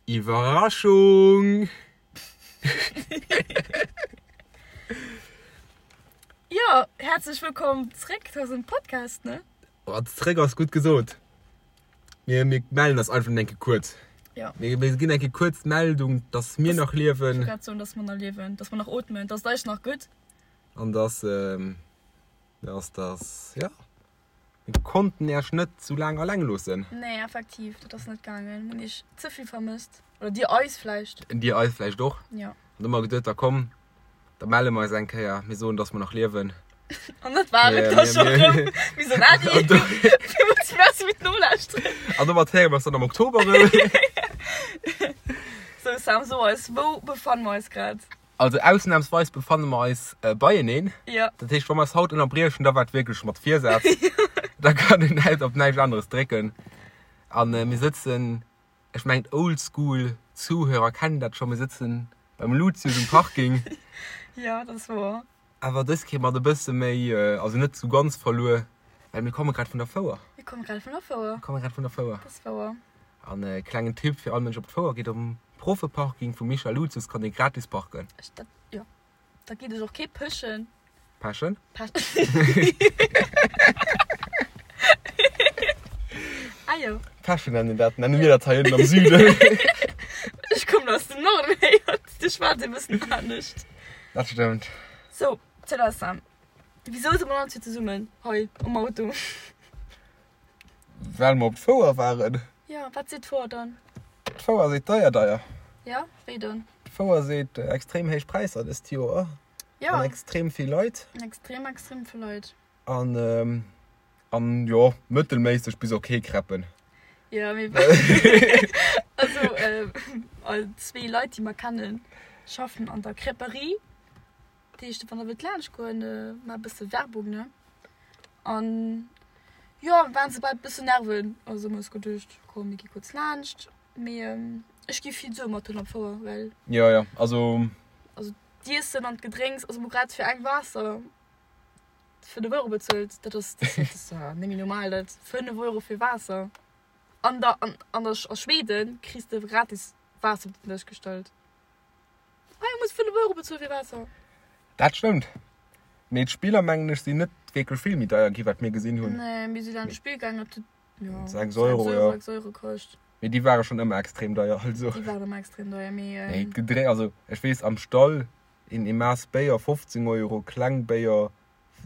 Iwwerraschung! Jo, häerzlech wëllkomm zréck zu eisem Podcast, ne? Oh, zréck ass gutt gesot. Mir, mir mellen eis einfach eng Kéier kuerz. Ja. Mir, mir ginn eng Kéier kuerz d'Meldung, dass mir nach liewen. Ech wollt grad soen, dass mer nach liewen, dass mer nach ootmen, dass et eis nach gutt. An dass, dass, dass, ja. Mir konnten Äech net sou laang alleng loossen. Nee, effektiv, dat ass net gaangen. Mir hunn Iech ze vill vermësst. Oder Dir eis vläicht. Dir eis vläicht och. Jo. An du hu mer geduet, da komm, da melle mer eis eng Kéier. Mir soen, dass mer nach liewen. An dat war et da scho rëm. Mir soen Äddi. Villmools Merci fir d'Nolauschteren. An domat héiere mer eis dann am Oktober rëm. Sou, Sam, so eis, wou befanne mer eis grad? Also ausnahmsweis befanne mer eis beieneen. Ja. Dat heescht, wa mer eis haut ënnerbriechen, da war et wierklech mat Virsaz. Da kann een net op näischt aneres drécken. An mir sëtzen, ech mengen d'Oldschool Zuhörer kennen dat scho, mir sëtzen beim Luzius um Parking. Ja, dat ass wouer. Awer dës Kéier mat e bësse méi, also net sou ganz verluer, well mir komme grad vun der Fouer. Mir komme grad vun der Fouer. Mir komme grad vun der Fouer. Dat ass wouer. An e klengen Tipp fir all Mënsch op d'Fouer geet, um Profeparking vum Michel Luzius kann ee gratis parken. Ech dat, jo. Da geet ech och kee pëschen. Pechen? Pechen. Ah jo. Pechen nennen dat, nenne mir dat hei ënnen am Süden. Ech kommen aus dem Norden, héiert, do schwätzt ee bëssen anescht. Dat stëmmt. Sou, Célestin, wisou si mer dann zwee zesummen hei am Auto? Well mer op d'Fouer waren. Jo, wat seet d'Fouer dann? D'Fouer seet deier, deier. Jo, wéi dann? D'Fouer seet extrem héich Präisser dëst Joer. Jo. An extrem vill Leit. Extrem, extrem vill Leit. An, an jo, mëttelméisseg bis ok Crêpen. Jo, mee also all zwee Leit, déi mer kennen, schaffen an der Crêperie. Dat heescht, wann der wëllt laanscht goen, maacht e bësse Werbung, ne? An jo, mir waren se bal e bëssen nerven. Also hu mer eis geduecht, komm mir gi kuerz laanscht. Mee ech gi vill Sue mat hunn am Fouer, well. Jo, jo, also. Also d'Iessen an d'Gedrénks, also mir hu grad fir eng Waasser 5 Euro bezuelt. Dat ass, dat ass net méi normal, dat 5 Euro fir Waasser. An der, an, an der, a Schweden kriss de gratis Waasser op den Dësch gestallt. Hei muss 5 Euro bezuelen fir Waasser. Dat stëmmt. Mee d'Spiller mengen ech sinn net wierklech vill méi deier gi wat mir gesinn hunn. Nee, mir si dann d'Spill gaangen dat huet jo 6 Euro, jo. 6 Euro kascht. Mee déi ware schonn ëmmer extrem deier also. Déi waren ëmmer extrem deier mee. Nee d'Gedré also ech weess am Stall een Eemaass Béier 15 Euro, kleng Béier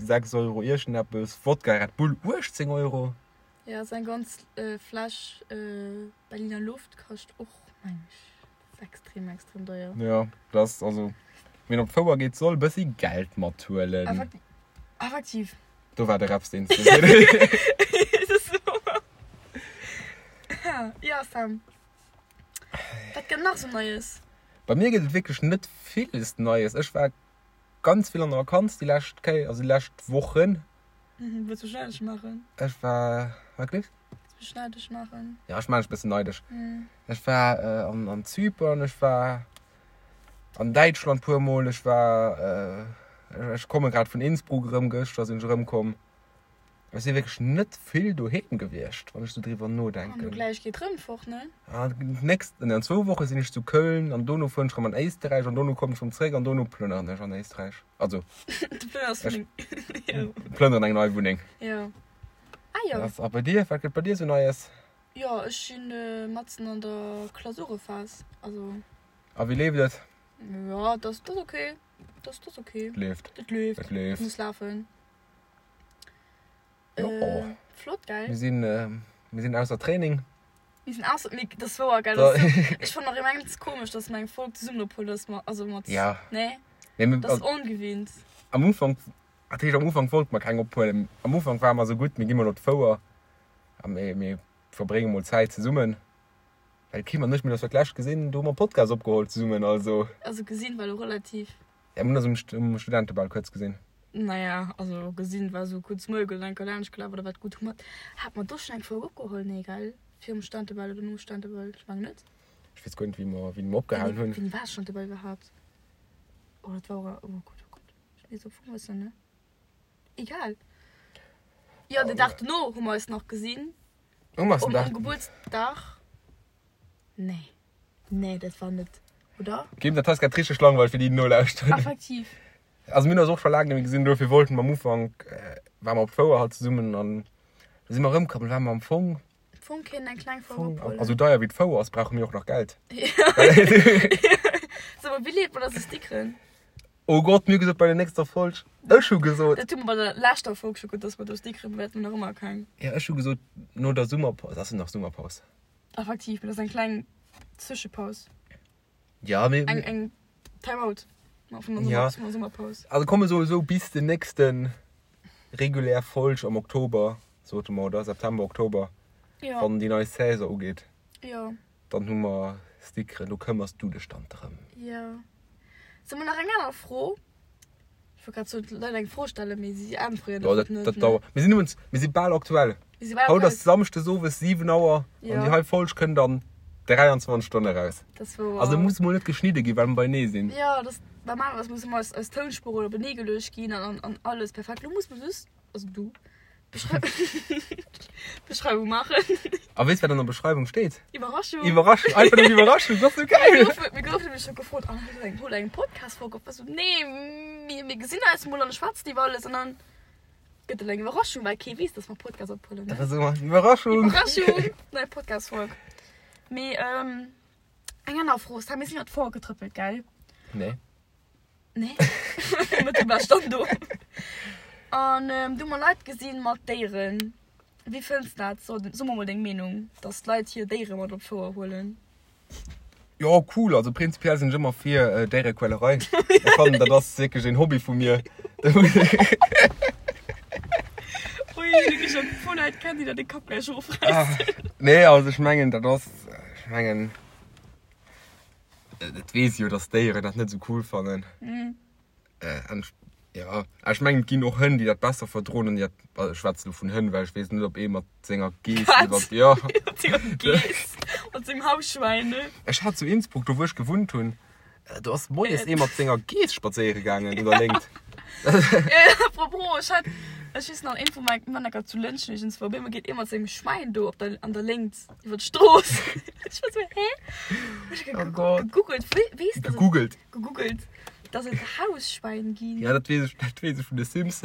6 Euro iergendeppes, Wodka Red Bull 18 Euro. Jo, sou eng ganz Fläsch Berliner Luft kascht och meng ech. Ass extrem, extrem deier. Jo, dat ass also, wien op d'Fouer geet, soll e bëssi Geld mathuelen. Effektiv. Do war de Reps, deen s de. Jo, Sam, wat gëtt nach sou Neies? Bei mir gëtt et wierklech net villes Neies. Ech war ganz vill an der Vakanz déi lescht Kéier, also déi lescht Wochen. Wëlls du mech neideg maachen? Ech war, wat gleefs? Wëlls du mech neideg maachen? Ja, ech maachen dech e bëssen neideg. Ech war an an Zypern, ech war an Däitschland puer mol, ech war, ech komme grad vun Innsbruck erëm, gëschter sinn ech erëmkomm. Ech si wierklech net vill doheem gewiescht, wann ech sou driwwer nodenken. An du gläich geet rëm fort, ne? Ah, d'nächst, an zwou Woche sinn ech zu Köln an dono fueren ech rëm an Éisterräich an dono kommen ech rëm zréck an dono plënneren ech an Éisterräich. Also, Du plënners ech Wunneng. Jo. plënneren eng nei Wunneng. Jo. Ah jo. A bei dir, wat gëtt bei dir sou Neies? Jo, ech sinn matzen an der Klausurephas, also. A wéi leeft et? Jo, dat ass ok. Dat ass ok. Et leeft. Et leeft. Et leeft. Muss lafen. Jo. Äh, flott, gell? Mir sinn, mir sinn ausser Training. Mir sinn ausser, mee dat ass wouer, gell? Dat ass sou, ech fannen nach immens komesch, dass mer eng Folg zesummen ophuelen, dass mer, also mat, Ja. nee? Nee, mir, Dat ass ongewinnt. Am Ufank, dat heescht am Ufank wollte mer keng ophuelen. Am Ufank ware mer sou gutt, mir gi mol op d'Fouer a mir, mir verbrénge mol Zäit zesummen. Well d'Kim an ech, mir hunn eis fir d'lescht gesinn, do hu mer Podcast opgeholl zesummen, also. Also gesinn war elo relativ. Ja, mir hunn eis um Studentebal kuerz gesinn. Naja, also gesinn war esou kuerz Moie gesoot, enker laanscht gelaf oder wat. Gutt, hu mer, hat mer do schonn eng Folg opgeholl? Nee, gell? Virum Studentebal oder nom Studentebal? Ech mengen net. Ech weess guer net, wéi mer, wéini mer opgehalen hunn. Wéini war Studentebal iwwerhaapt? Oh, dat war och, oh Gott, oh Gott, ech weess am Fong wëssen, ne? Egal. Jo, den Dag dono hu mer eis nach gesinn. Hu mer eis den Um Dag. Gebuertsdag? Nee. Nee, dat war net, oder? Kim, dat hei ass grad richteg langweileg fir déi, déi nolauschteren. Effektiv. Also mir hunn eis och scho laang net méi gesinn, dofir wollten mer am Ufank, ware mer op d'Fouer halt zesummen an da si mer erëmkomm, da ware mer am Fong. Fong kéint eng kleng Fouer ophuelen. A sou deier wéi d'Fouer ass, brauche mir och nach Geld. So, wéi leet mer da sou Stickeren? Oh Gott, mir hu gesot bei der nächster Folg. Ech hu gesot. Dat hu mer bei der leschter Folg scho gesot, dass mer do Stickeren, mä dat hu mer nach ëmmer keng. Ja, ech hu gesot no der Summerpaus. Ass et nach Summerpaus? Effektiv, mä dat ass eng kleng Zwëschepaus. Ja, mee. Eng, eng Time-out vun der Ja. Summer, vun der Summerpaus. Also komme soe sou bis den nächsten regulär Folg am Oktober, sote mer, oder? September, Oktober, Ja. wann déi nei Saison ugeet. Ja. Dann hu mer Stickeren, do këmmers du dech dann drëm. Ja. Soe mer nach eng aner Fro? Ech wollt grad soen, d'Leit eng Fro stellen, mee si äntweren Jo, einfach dat, net, dat ne? dauert. Mir sinn iwwens, mir si bal aktuell. Mir si bal Haut aktuell. ass Samschdes owes 7 Auer an Ja. déi hei Folg kënnt an 23 Stonne eraus. Dat ass wouer. Also muss mol net geschnidde ginn, well mer beienee sinn. Jo, dat, normalerweis muss ëmmer eis, eis Tounspuren openee geluecht ginn an, an, an alles perfekt. Lo muss mer just, also du, Beschreiwung maachen. A weess wat an der Beschreiwung steet? Iwwerraschung! Iwwerraschung! Einfach nëmmen Iwwerraschung, dat ass sou geil! Mir goufen, mir goufen nämlech scho gefrot, ah, hutt eng, hutt eng Podcast-Folg op? Ech sou, nee, mir, mir gesinn eis mol an schwätzen iwwer alles an dann gëtt et eng Iwwerraschung, well kee weess, dass mer Podcast ophuelen, Dat ne? ass ëmmer Iwwerraschung! Iwwerraschung! Nei Podcast-Folg. Mee, ähm, eng aner Fro, Sam, mir sinn iwwer d'Fouer getrëppelt, gell? Nee. Nee. Mat dem war stand do. An ähm, du mer Leit gesinn mat Déieren. Wéi fënns dat? So, so mer mol deng Meenung, dass d'Leit hir Déiere mat op d'Fouer huelen. Jo, cool. Also prinzipiell sinn ech ëmmer fir äh, Déierequälerei. Ech fannen, dat ass wierklech een Hobby vu mir. Ui, wierklech e puer Leit kennen, déi der de Kapp gläich erofräissen. Nee, also ech mengen, dat ass, ech mengen, Et weess jo, dass d'Déieren dat net esou cool fannen. Mm. Äh, an ech, ja, ech mengen, et ginn och Hënn, déi dat besser verdroen an déi dat, also ech schwätze lo vun Hënn, well ech weess net, ob ee mat senger Geess Wat? iwwer, ja. Mat senger Geess, mat sengem Hausschwäin, ne? Ech hat zu Innsbruck, do wou ech gewunnt hunn, do ass moies ee mat senger Geess spadséiere gaangen un der Léngt. Apropos, ech hat, ech weess nach, een vu menge Männecker zu Lëntgen iergendswou, op eemol geet ee mat sengem Schwäin do op der, an der Léngt iwwer d'Strooss. Ech war sou, hä? Ech hu Oh Gott. gegoogelt, wee, weess dass et, Gegoogelt. gegoogelt, dass et Hausschwäin ginn. Ja, dat weess ech, dat weess ech vun de Sims.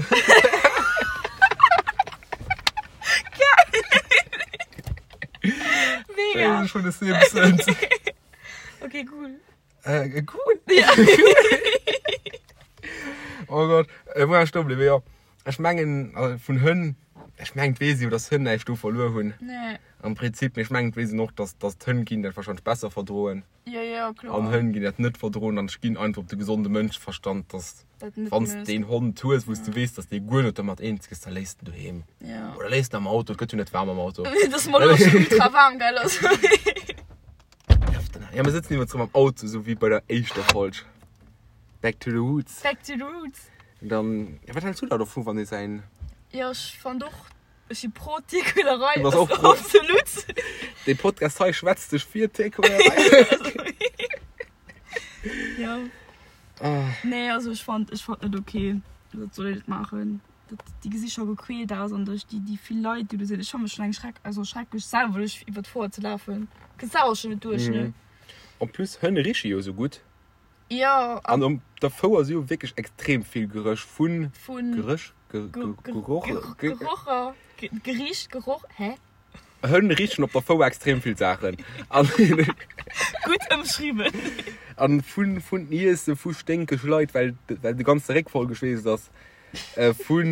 Mega. Weess ech vun de Simpsons. Okay, cool. Äh, cool. Ja. Oh Gott, äh, wou war ech stoe bliwwen? Jo, ech mengen, also vun Hënn, ech mengen, et weess ee jo, dass Hënn näischt do verluer hunn. Nee. Am Prinzip, mee ech mengen, et weess een och, dass, dass d'Hënn ginn dat warscheinlech besser verdroen. Ja, ja, kloer. An Hënn ginn dat net verdroen. An ech ginn einfach op de gesonde Mënscheverstand, dass Dat net wann s méchs. de een Hond hues, wou s de weess, dass dee guer net domat eens gëss, da léiss de en doheem. Ja. Oder léiss en am Auto, et gëtt jo net waarm am Auto. Dat ass mer elo schon ultra waarm, gell? Also. Ja, mir sëtzen iwwer am Auto, sou wéi bei der éischter Folg. Back to the roots. Back to the roots. Und dann, ja, wat hältst du da dovu, wann ee säin. Ja, ech fand och, ech si pro Tierquälerei. Du bass och pro. Absolut. Dee Podcast hei schwätzt sech fir Tierquälerei. Ja. Ah. Nee, also ech fand, ech fand net okay. Dat soll een net maachen. Dat, déi gesi scho gequält aus an duerch déi, déi vill Leit, déi do sinn. Ech fanne schon eng Schreck, also schrecklech selwer duerch iwwer d'Foire ze lafen. Kënns selwer schon net duerch, ne? Mhm. En plus, Hënn riche jo sou gutt. Jo, An op der Fouer si jo wierklech extrem vill Geréch vun. Vun. Geréch? Ge, ge, Geroch? Ge, Gerocher, Gericht, Geroch, hä? Hënn richen op der Fouer extrem vill Saachen. An. Gutt ëmschriwwen. An vun, vun Iesse, vu sténkeg Leit, well, well de ganze Réck voll geschweesst ass. Vu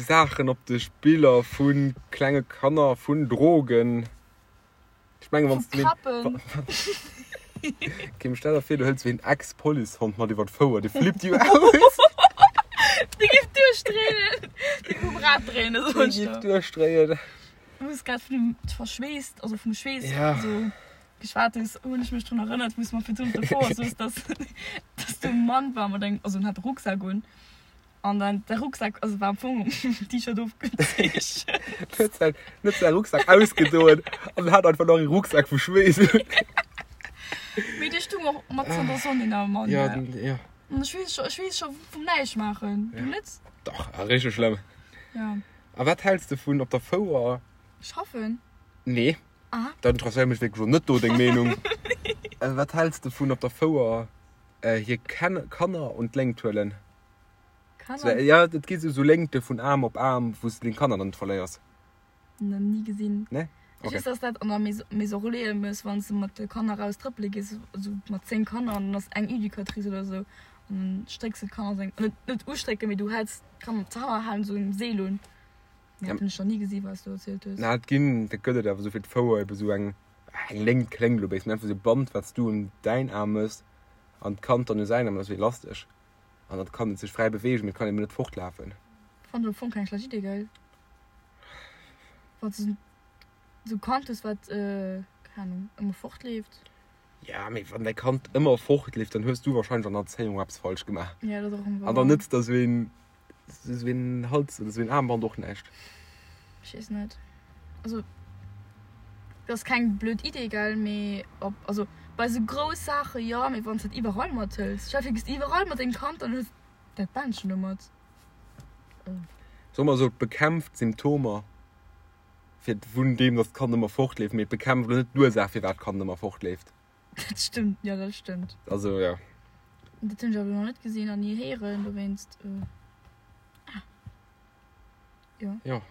Saachen op de Spiller, vu klenge Kanner, vun Drogen. Ech mengen, wann s du. Vu Krappen. Kim, stell der vir, du hëls wéi en Ex-Policehond mat iwwer d'Fouer, dee flippt jo aus. Dee giff duerchdréinen. Dee giff um Rad dréinen, soen ech Dee giff der. duerchdréien. Du hues grad vun dem verschweesst, also vum Schweess Ja. esou geschwat hues, hunn ech mech drun erënnert, wou s mer virdrun op der Fouer soos, dass, dass do e Mann war mat engem, also en hat e Rucksak un. An dann de Rucksack, also war am Fong um T-Shirt ofgezeechent. Huet säin, huet säi Rucksack ausgedoen an hat einfach nach e Rucksack vu Schweess un. Mee dee stung och matzen an der Sonn, deen arme Mann. Ja, den, ja. An ech weess scho, ech weess scho vum näischt maachen. Du net? Dach, ah, richteg schlëmm. Ja. A wat häls de vun op der Fouer? Schaffen? Nee. Ah. Dat interesséiert mech wierklech och net do, deng Meenung. Wat häls de vun op der Fouer hir Kanner un d'Léngt huelen? Kanner? Ja, et gi sou Léngte vun Aarm op Aarm, wou s de deng Kanner dann net verléiers. Nach ni gesinn. Nee? Ech weess, dass dat an der Maison Relais ëmmer ass, wann s de mat de Kanner raus trëppele gees, esou mat 10 Kanner an dann ass eng Educatrice oder esou an dann strécks de d'Kanner seng, net net ustrécken, mee du häls d'Kanner d'Kanner halen esou en Seel un. Mee dat hunn ech nach ni gesi wat s du erzielt hues. Na, et ginn, dat gëtt et awer esou fir d'Fouer ebe esou eng, eng Léngt kléngt elo béis, mee einfach esou e Band, wat s du un däin Aarm mëss an d'Kand dann u säin Aarm, dat ass wéi Elastesch an dat kann et sech fräi beweegen, mee et kann eben net fortlafen. Fannen ech am Fong keng schlecht Idee, gell? Wann s du esou Kand hues, wat, keng Ahnung, ëmmer fortleeft. Ja, mee wann däi Kand ëmmer fortleeft, dann hues du wahrscheinlech an der Erzéiung eppes falsch gemaach. Ja, dat ass och ëmmer An dann nëtzt der esou een, esou een Hals oder esou een Aarmband och näischt. Ech weess net. Also, dat ass keng blöd Idee, gell, mee ob, also bei esou grouss Saache jo, mee wann s dat iwwerall mathëls, stell dir vir, du gees iwwerall mat dengem Kand, dann hues dat Bändchen do mat. Soe mer esou, et bekämpft d'Symptomer fir vun deem, datt d'Kand ëmmer fortleeft, mee et bekämpft elo net d'Ursaach, firwat d'Kand ëmmer fortleeft. Dat stëmmt, jo, dat stëmmt. Also, jo. Dat hunn ech awer nach net gesinn an ni héieren, dowéinst. Ah. Jo. Jo.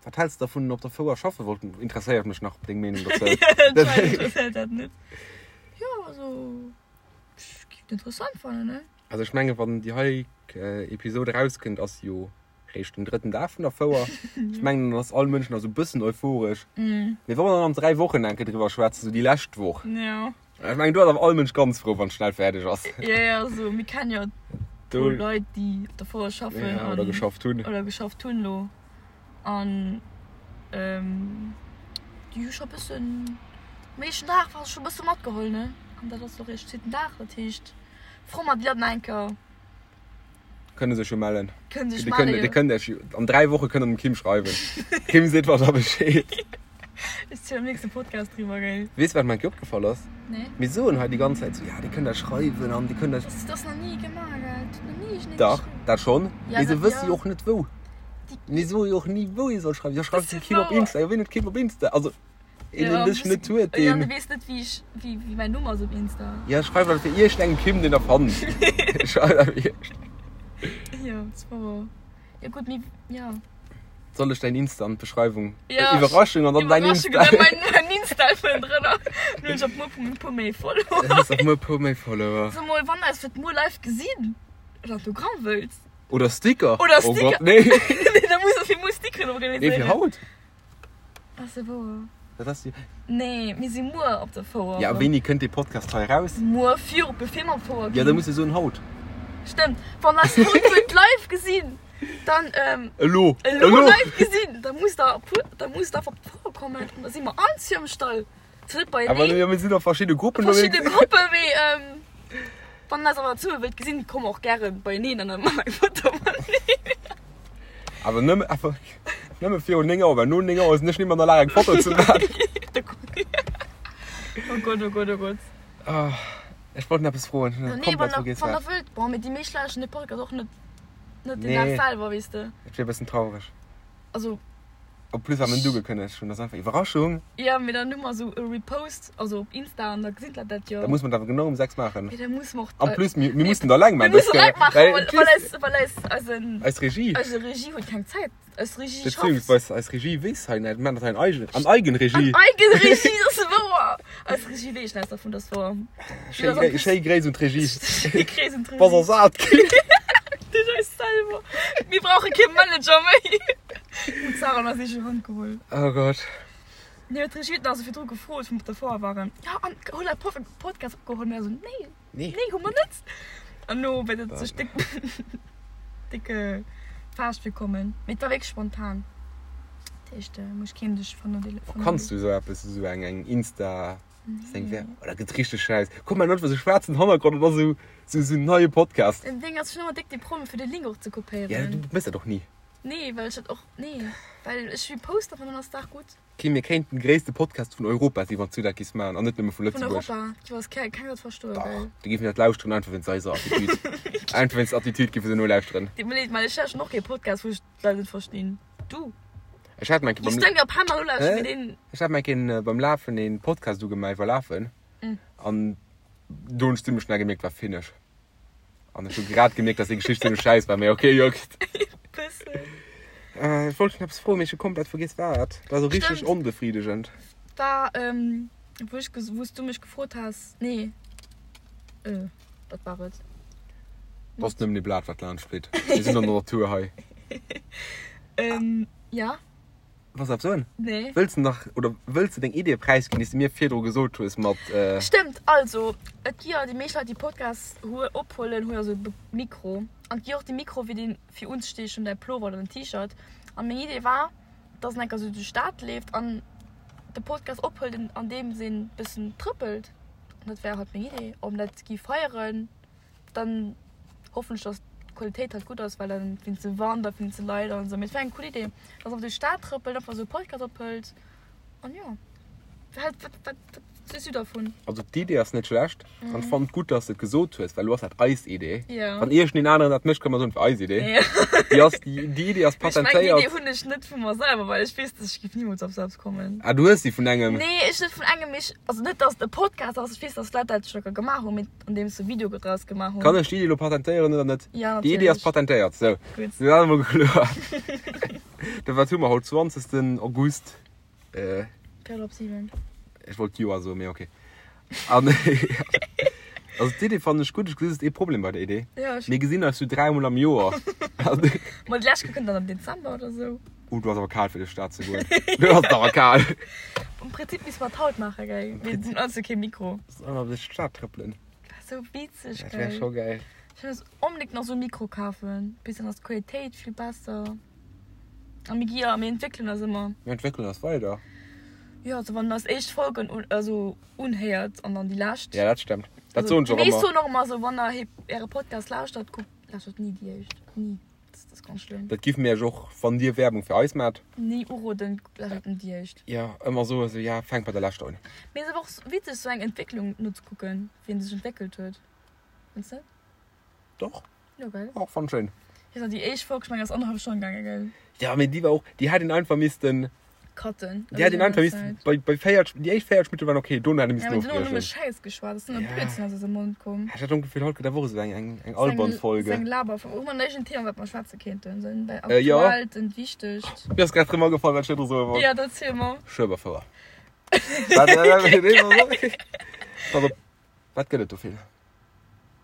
Wat häls de dervun, op der Fouer schaffe wollten? Interesséiert mech nach deng Meenung dozou. Jo, interesséiert dat net. Jo, also, ech géif et interessant fannen, ne? Also ech menge wann déi hei Episode erauskënnt, ass jo réischt den drëtten Dag vun der Fouer. Ech mengen dann ass all Mënsch nach sou bëssen euphoresch. Mee wa mer dann an 3 Wochen eng Kéier driwwer schwätzen, sou déi lescht Woch, ech mengen do ass awer all Mënsch ganz frou wann et schnell fäerdeg ass. Jo jo, also mir kennen jo e puer Leit déi op der Fouer schaffen oder geschafft hunn. Oder geschafft hunn elo an déi hu scho bëssen, am éischten Dag war scho bësse matgeholl ne an dat ass och eréischt zweeten Dag, dat heescht. Fro mat Leit nach eng Kéier. Kënne sech jo mellen. Kënne sech mellen, jo. Dir kënnt Iech jo an 3 Woche kënnt der dem Kim schreiwen. Kim seet mer da Bescheed. Ech zielen am nächste Podcast driwwer, gell? Weess wat mer eng Kéier opgefall ass? Nee. Mir soen hei déi ganz Zäit sou, ja dir kënnt eis schreiwen an dir kënnt eis. Dat ass nach ni gemaach, gell? Dat huet nach ni iergendeen Dach, geschriwwen. dat schonn. Ja, Mee se dat, wësse ja. jo och net wou. Déi. Mir soe jo och ni wou ee soll schreiwen. Jo schreift Dat dem ass Kim op wouer. Insta. Jo wien huet Kim op Insta? Also. Een, Ja, deen dech net huet, Ja, deen. du weess net, wéi ech, wéi, wéi mäin Numm ass op Insta. Ja, schreif einfach iergendengem Kim, deen der fannt. Schreif einfach iergend. Jo, dat war wouer. Jo, gutt, mee, ja. Soll ech däin Insta an d'Beschreiwung? Ja. Iwwerraschung an dann däin Iwwerraschung Insta. an dann mäin, mäin Insta vun drënner. Dann hunn ech op muer e puer méi Follower. Dann hues op muer e puer méi Follower. So mol, wann der eis fir d'muer live gesinn oder Autogramm wëllt. Oder Sticker. Oder Oh Sticker. Gott, nee. Nee, da muss ech fir muer Stickeren Nee, fir organiséieren. haut. Ass se wouer? Dat ass jo. Nee, mir si muer op der Fouer. Ja, a wéini kënnt dee Podcast hei eraus? Muer viru, bevir mer op d'Fouer ginn. Ja, da muss de soen haut. Stëmmt. Wann eis haut wëllt live gesinn, dann, ähm. Elo! Elo live gesinn, da musst der puer, da musst der einfach op d'Fouer kommen an da si mer all zu am Stall. Zwar net beieneen. Awer jo, mir sinn a verschidde Gruppen Verschidde ënnerwee. Gruppen, mee, ähm, wann der eis awer zesumme wëllt gesinn, komme och gäre beieneen an da maache mer eng Foto mateneen. Awer nëmme, awer nëmme virun 9 Auer, well no 9 Auer sinn ech net méi an der Lag eng Foto ze maachen. Oh Gott, oh Gott, oh Gott. Ah, ech wollt nach eppes froen, ech hunn Nee, komplett wann der, vergiess wann der wat. wëllt. Bon, mee déi meescht lauschteren de Podcast och net, net den Nee. Dag selwer, weess de. Et wier e bëssen traureg. Also. En plus wat mir net ugekënnegt hunn, ass einfach Iwwerraschung. Jo, mee dann hu mer esou e Repost, also op Insta, an da gesinn d'Leit dat jo. Da muss mer dat awer genau um 6 maachen. Mee da musse mer och. En plus, mir, mir mussen dat eleng Mir maachen. mussen eleng maachen, Well, well, well eis, well eis, eisen. Eis Regie. Eise Regie huet keng Zäit. Eis Regie schafft. Beziehungsweise eis Regie weess hei net, mir maachen dat hei an Eigen, an Eigenregie. An Eigenregie, dat ass wouer. Eis Regie weess näischt dervun, dat ass wouer. Schéi, Gré, schéi Gréiss un d'Regie. Schéi Gréiss un d'Regie. Bass ersat ginn. Duerch eis selwer. Mir brauche kee Manager méi. Hun d'Sarah an eis eege Hand geholl. Oh Gott. Nee, huet d'Regie huet nach esou virdru gefrot, wou mer op der Foire waren, Jo, an hutt der e Podcast opgeholl? Mir esou, Nee, Nee. nee, hu mer net. An elo wäert et sech déck, déck faascht virkommen. Mee et war wierklech spontan. Dat heescht, muss keen sech vernodeelen. Kanns du esou eppes, esou eng, eng Insta. Seng wär, oh, dat gëtt richteg scheiss. Kuck mal net sou schwaarzen Hannergrond an da sou sou sou neie Podcast. Den Ding ass ech hunn ëmmer déck déi Problemer fir de Link och ze kopéieren. Ja du mëss dat och ni. Nee well ech dat och nee well ech repost einfach an dann ass d'Saach gutt. Kim mir kéinten de gréisste Podcast vun Europa si wann s du dat giss maachen an net nëmme vu Vun Lëtzebuerg. Europa? Jo ass keng keng dat verstoen Dach gell. déi géifen dat lauschteren einfach wéinst eiser Attitude. Einfach wéinst der Attitude géife se nolauschteren. Deet mir leed mä ech lauschteren och kee Podcast wou ech d'Leit net verstinn. Du. Ech hat meng Beim Ech hat meng beim Lafen een Podcast ugemaach iwwer Lafen. An do hunn ech zimmlech schnell gemierkt, war finish. An ech hu grad gemierkt, dass déi Geschicht zimmlech schäiss war, mee okay, juckt. Bëssen. Äh, ech wollt dech nach eppes froen, mee ech hu komplett vergiess wat. Dat war sou richteg Stimmt. onbefriedegend. War, ähm, wou ech ges-, wou s du mech gefrot has, nee, äh, wat war et? Dat ass nëmmen ee Blat, wat laanscht flitt. Mir sinn an der Natur hei. Ähm, ja. Wolls de eppes soen? Nee. Wëlls de nach, oder wëlls de deng Idee präisginn, déi s de mir virdru gesot hues mat. Stëmmt, also et gi jo déi meescht Leit déi Podcasts hu ophuelen hu jo sou e Mikro an et gi och déi Mikro fir deen fir unzestiechen däi Plover oder den T-Shirt an meng Idee war dass en enker sou duerch d'Stad leeft an de Podcast ophëlt an deems een bëssen trëppelt an dat wär halt meng Idee ob dat gi feieren. Dann hoffen ech dass d'Qualitéit halt gutt ass, well dann wéinst dem Wand a wéinst de Leit an esou. Mee et wär eng cool Idee, dass einfach duerch d'Stad trëppelt, einfach esou e Podcast ophëlt an jo. Wat, wat, wat, wat sees du dervun? Also d'Idee ass net schlecht an ech fannen et gutt, dass de et gesot hues, well elo ass dat eis Idee. Ja. Wann iergendeen aneren dat mécht, kënne mer soen, et war eis Idee. Ja. Déi ass, déi, déi Idee ass Mee ech mengen, déi patentéiert. Idee hunn ech net vu mer selwer, well ech weess, dass ech géif nimools op sou eppes kommen. Ah, du hues se vun engem? Nee, ech net vun engem, mee ech, also net, dass et e Podcast ass, ech weess, dass Leit dat scho gemaach hunn, mee Andeems se Video draus gemaach hunn. Kann ech déi Idee elo patentéieren oder net? Ja, Déi Idee ass natierlech. patentéiert. Sou, Gutt. dat ass emol kloer. Da wat hu mer haut? 20. August. Äh, Véierel op 7. ech wollt d'Joer soen, mee okay. An also d'Idee fannen ech gutt. Ech gesi just ee Problem bei der Idee. Ja, ech. Mir gesinn eis sou dräimol am Joer. Ma déi lescht Kéier kënnt dann am Dezember oder sou. Oh, du ass awer kal fir duerch d'Stad ze goen. Du ass awer kal. Am Prinzip misst mer et haut maachen, gell? Mir hunn also kee Mikro. Soll mer duerch d'Stad trëppelen? Dat wär sou witzeg, Dat wär gell? scho gäil. Ech wëll onbedéngt nach sou e Mikro kafen. Bis dann ass d'Qualitéit vill besser. A mir gi jo, mir entwéckelen eis ëmmer. Mir entwéckelen eis weider. Jo, also wann der eis éischt Folgen un, also unhéiert an dann déi lescht. Ja, dat stemmt. Dat soen ech och Déi meescht ëmmer. soen och ëmmer esou, wann der äre Podcast lauschtert, kuckt, lauschtert ni déi éischt. Ni. Dat ass ganz schlëmm. Dat giff mir iech och, wann dir Werbung fir eis maacht. Ni uroden, lauschtert net déi éischt. Jo, ëmmer soen esou, ja, fänkt bei der leschter un. Mee et ass awer och witzeg sou eng Entwécklung nozekucken, wéi en sech entwéckelt huet. Fënns net? Doch. Jo, gell? Och, fannt schéin. Weess nach, déi éischt Folg, ech mengen, ass annerhallef Stonn gaangen, gell? Ja, mee déi war och, déi hätt een einfach missten. Cutten. Déi hätt een einfach missten bei, bei 40, déi éischt 40 Minutte waren okay, dono hätt ee Ja, missten mee dono hu nëmme ofbriechen. Schäiss geschwat, ass nëmme Ja. Blödsinn aus eisem Mond komm. Ech hat och d'Gefill, haut gëtt awer och esou eng, eng, eng albern Folge. Seng Laberfolge. Hu mer nach iergend Thema, wat mer schwätze kéinten? Sou en Äh, jo. aktuellt, en wichtegt? Mir ass grad erëm agefall, wat ech virdru soe wollt. Ja, dann ziel mer. Schueberfouer. Wat, äh, Pass op, wat gëtt et do vill?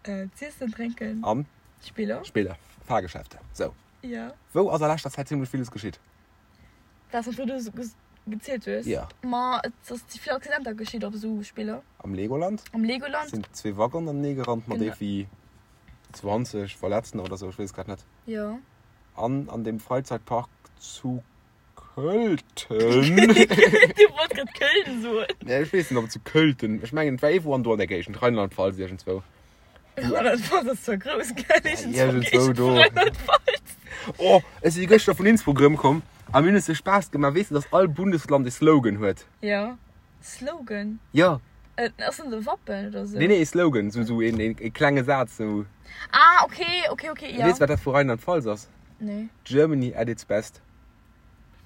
Äh, z'iessen, drénken. An? Spiller. Spiller, Fahrgeschäfte. Sou. Ja. Wou ass a leschter Zäit zimmlech villes geschitt? Wat s du gezielt hues? Ja. Ma et ass vill Accidenter geschitt op esou Spiller. Am Legoland? Am Legoland. Sinn zwee Waggonen anenee gerannt mat Genau. iergendwéi 20 Verletzten oder sou, ech weess et grad net. Ja. An an dem Freizeitpark zu Költen. Du wollt grad Köln soen. Nee, ech weess net, ob et zu Költen, ech mengen et war iergendwou an do an der Géigend, Rheinland-Pfalz iergendzwou. Rheinland-Pfalz ass zwar grouss, gell? Iergendzwou do. Rheinland-Pfalz. Oh, ech si gëschter vun Innsbruck erëmkomm a mir hunn es sou Spaass gemaach. Weess de, dass all Bundesland e Slogan huet? Ja. Slogan? Ja. Äh, ass dat e Wappen oder sou? Nee, nee, e Slogan, sou, sou een, een, e klenge Saz, sou. Ah, okay, okay, okay, ja. Weess wat dat vu Rheinland-Pfalz ass? Nee. Germany at its best.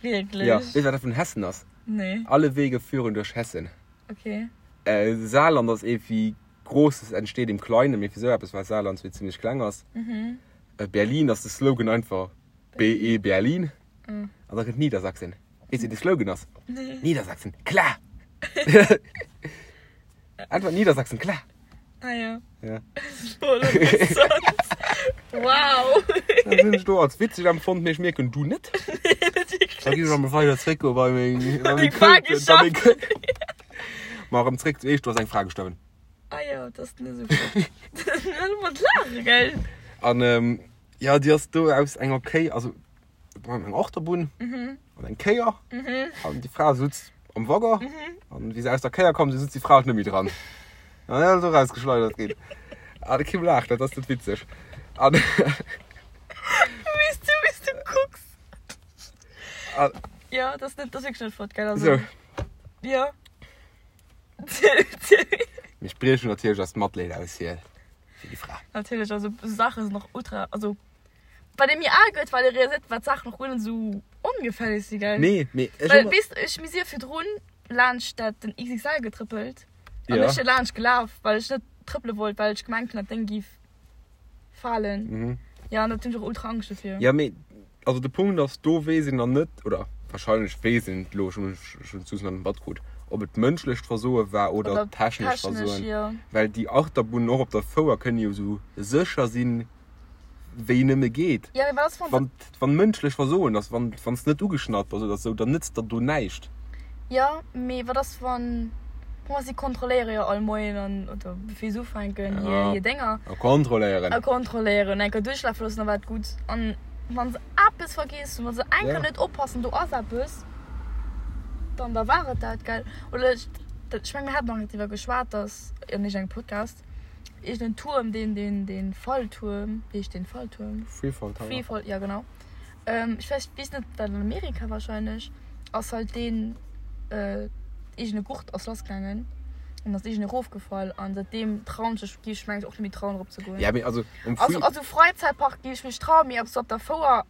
Wierklech? Ja. Weess wat dat vun Hessen ass? Nee. Alle Wege führen durch Hessen. Okay. Äh, Saarland ass ee wéi Großes entsteht im Kleinen, mee fir sou eppes, well Saarland zwee zimmlech kleng ass. Mhm. Äh, Berlin ass de Slogan einfach BE Berlin. Mhm. An da kënnt Niedersachsen. Weess wéi de Slogan ass? Nee. Niedersachsen, klar! Einfach Niedersachsen, klar! Ah ja. Ja. Voll interessant. Wow. Dat hunn ech do als witzeg empfonnt, mee ech mierken, du net. Nee, net wierklech. Da gi ech emol weider zréck goe bei meng, bei meng Deng Fra Këlten, bei meng Këlten. Ma erëm zréck zu eech, do ass eng Fra gestuerwen. Ah jo, dat ass net esou flott. Net mat laache, gell? An jo, déi ass do aus enger Kéi, also do war eng Achterbunn an eng Kéier an déi Fra sutz am Waggon an wéi se aus der Kéier komm sinn, sutz déi Fra halt net méi dran. An dann ass se erausgeschleidert ginn. An de Kim laacht, dat ass net witzeg. An Wéi s du, wéi s du kucks. An Jo, dat ass net, dat ass wierklech net flott, gell? Also, sou. jo. Mir spriechen natierlech eist Matleed aus fir fir déi Fra. Natierlech, also esou Saache sinn och ultra, also wat ee méi al gëtt, wat ee realiséiert, wat Saachen och guer net esou ongefälleg si, gell? Nee, mee ech Well hu. weess de, ech, mir si jo virdrun laanscht dat den XXL getrëppelt. An Ja. ech si laanscht gelaf, well ech net trëppele wollt, well ech gemengt hunn, dat Déng giff falen. Mhm. Ja, an dat hunn ech och ultra Angscht dofir. Ja, mee also de Punkt ass, do weess een dann net, oder wahrscheinlech weess een et elo, ech hunn ech hunn d'Sus nach net matkrut, ob et mënschlecht Versoe war oder Oder technescht technesch, Versoen. jo. Well déi Achterbunnen och op der Fouer kënne jo esou sécher sinn, wéi nëmme geet. Ja, mee wat ass, wann se. Wann, wann mënschlech Versoen ass, wann, wann s net ugeschnallt bass oder sou, dann nëtzt der do näischt. Jo, mee wat ass, wann. Bon, si kontrolléiere jo all Moien an, oder bevir se ufänken, hir, Ja. hir Dénger. A kontrolléieren. A kontrolléieren. Eng Kéier duerchlafe loossen, da war et gutt. An wann se eppes vergiess hunn, wa se eng Kéier Ja. net oppassen, do ass eppes, dann da war et dat, gell? Oder ech, dat, ech meng, mir haten nach net driwwer geschwat, dass an iergendengem Podcast, Iergend en Tuerm, deen, deen, deen Falltuerm, wéi heescht deen Falltuerm? Freefall Tower. Freefall, ja genau. Ähm, ech weess, weess net, dat an Amerika wahrscheinlech, ass halt deen äh, iergend e Gurt ass lassgaangen an ass iergend erofgefall an säitdeem trauen ech mech, géif ech mengen och net méi trauen erop ze goen. Ja, mee also um Free. Also, also Fräizäitpark géif ech mech trauen, mee ob sou op der Fouer.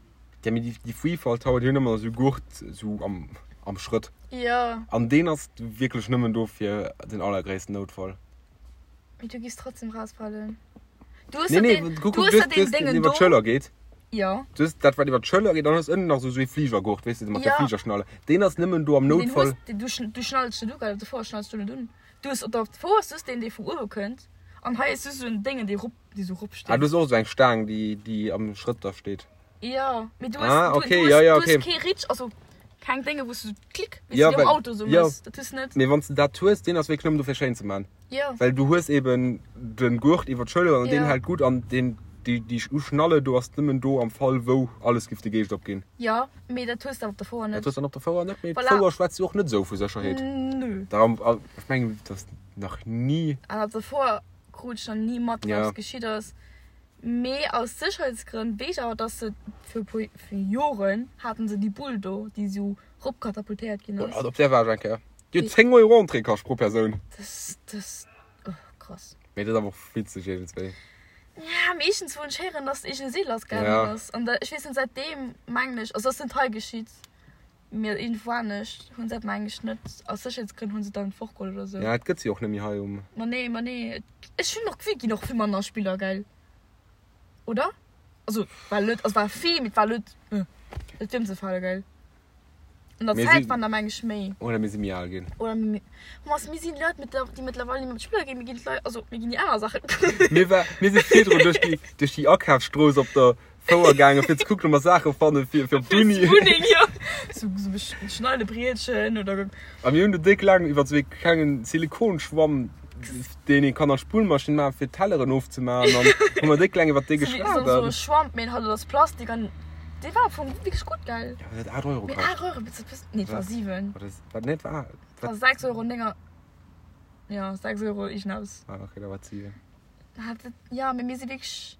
Ja, mee déi, déi Freefall Tower, déi hunn ëmmer esou Gurt sou am, am Schrëtt. Jo. An deen ass wierklech nëmmen do fir den allergréissten Noutfall. Mee du giss trotzdem rausfallen. Du hues Nee, ja nee, den, guck, du guck, hues ja du den hues den Dingen iwwer do. d'Schëller geet. Ja. Du hues dat, wat iwwer d'Schëller geet, dann hues ënnen nach esou ee Fligergurt, weess de, mat der Ja. Fligerschnalle. Deen ass nëmmen do am Den Noutfall. hues, den, du, schn- du schnallst den u, gell? Op der Fouer schnallst du net un. Du hues op der Fouer hues du den, dee vu uewe kënnt. An hei hues du sou en Déngen, dee rop, dee sou rop Ah, steet. du hues och esou eng Staang, déi, déi am Schrëtt da steet. Ja, mee du hues, Ah, du, okay, du hues, ja, ja, du hues okay. kee Ritsch, also keng Dénge, wou s du klick, wéi s Ja, du am well- Auto sou ja. mëss. Dat hues du net. Mee wann s de dat hues, deen ass wierklech nëmmen do fir schéin ze man. Ja. Well du hues eben den Gurt iwwer d'Schëller an deen Ja. hält gutt an deen, déi, déi Schnalle do ass nëmmen do am Fall wou alles giff de Geescht opginn. Ja, mee dat hues de awer op der Fouer Dat net. hues dann op der Fouer net, mee Voilà. d'Fouer schwätzt jo och net esou vu Sécherheet. Nö. Darum, ech mengen, dat ass nach ni. An op der Fouer krut ech nach ni mat, wat Ja. geschitt ass. Mee aus Sécherheetsgrënn weess ech awer, dass se fir e puer, fir Joren haten se déi Bull do, déi esou ropkatapultéiert ginn ass. Oh, op där war ech eng Kéier. Déi huet 10 Euro Entrée kascht pro Persoun. Das, das, oh, krass. Mee dat ass awer och witzeg iergendswéi. Ja, meeschtens wou ech héieren, dass iergend e Seel lassgaangen Ja. ass. An da, ech weess net, säitdeem mengen ech, also ass net hei geschitt, mee iergendwou anescht hunn se dat mengen ech net, aus Sécherheetsgrënn hunn se et dann fortgeholl oder sou. Ja, et gëtt se och net méi hei um. Ma nee, ma nee. Ech hunn och d'Gefill, et ginn och vill manner Spiller, gell? Oder? Also, war net, also war vill, mee et war net, net ëmzefale, gell? An der Mir Zäit si- waren der meng ech méi. Oder mir si méi al ginn. Oder mir, Thomas, mir sinn Leit, mit der, déi mëttlerweil net méi op d'Spiller ginn, mir ginn d'Leit, also mir ginn déi aner Saachen kucken. Mir war, mir si virdrun duerch déi, duerch déi Akafsstrooss op der Fouer gaangen, fir ze kucken, ob mer Saache fannen fir, fir op Fir d'Uni. d'Wunneng, jo. Sou, sou e Schneidebrietchen oder. A mir hunn do déck laang iwwer sou ee klengen Silikonschwamm, deen ee kann an d'Spullmaschinn maachen, fir d'Telleren ofzemaachen, an hu mer déck laang iwwer dee Sou wéi geschwat. sou e Schwamm, mee halt aus Plastik an dee war am Fong wierklech gutt, gell? Ja, dat huet 8 Euro Mee kascht. 8 Euro, bist du, bist, nee, et war Wat? 7. Wat ass, wat, nee, et war, Et war 6 Euro 9, ja, 6 Euro iergendeppes. Ah, okay, da war et 7. Hat et, ja, mee mir si wierklech,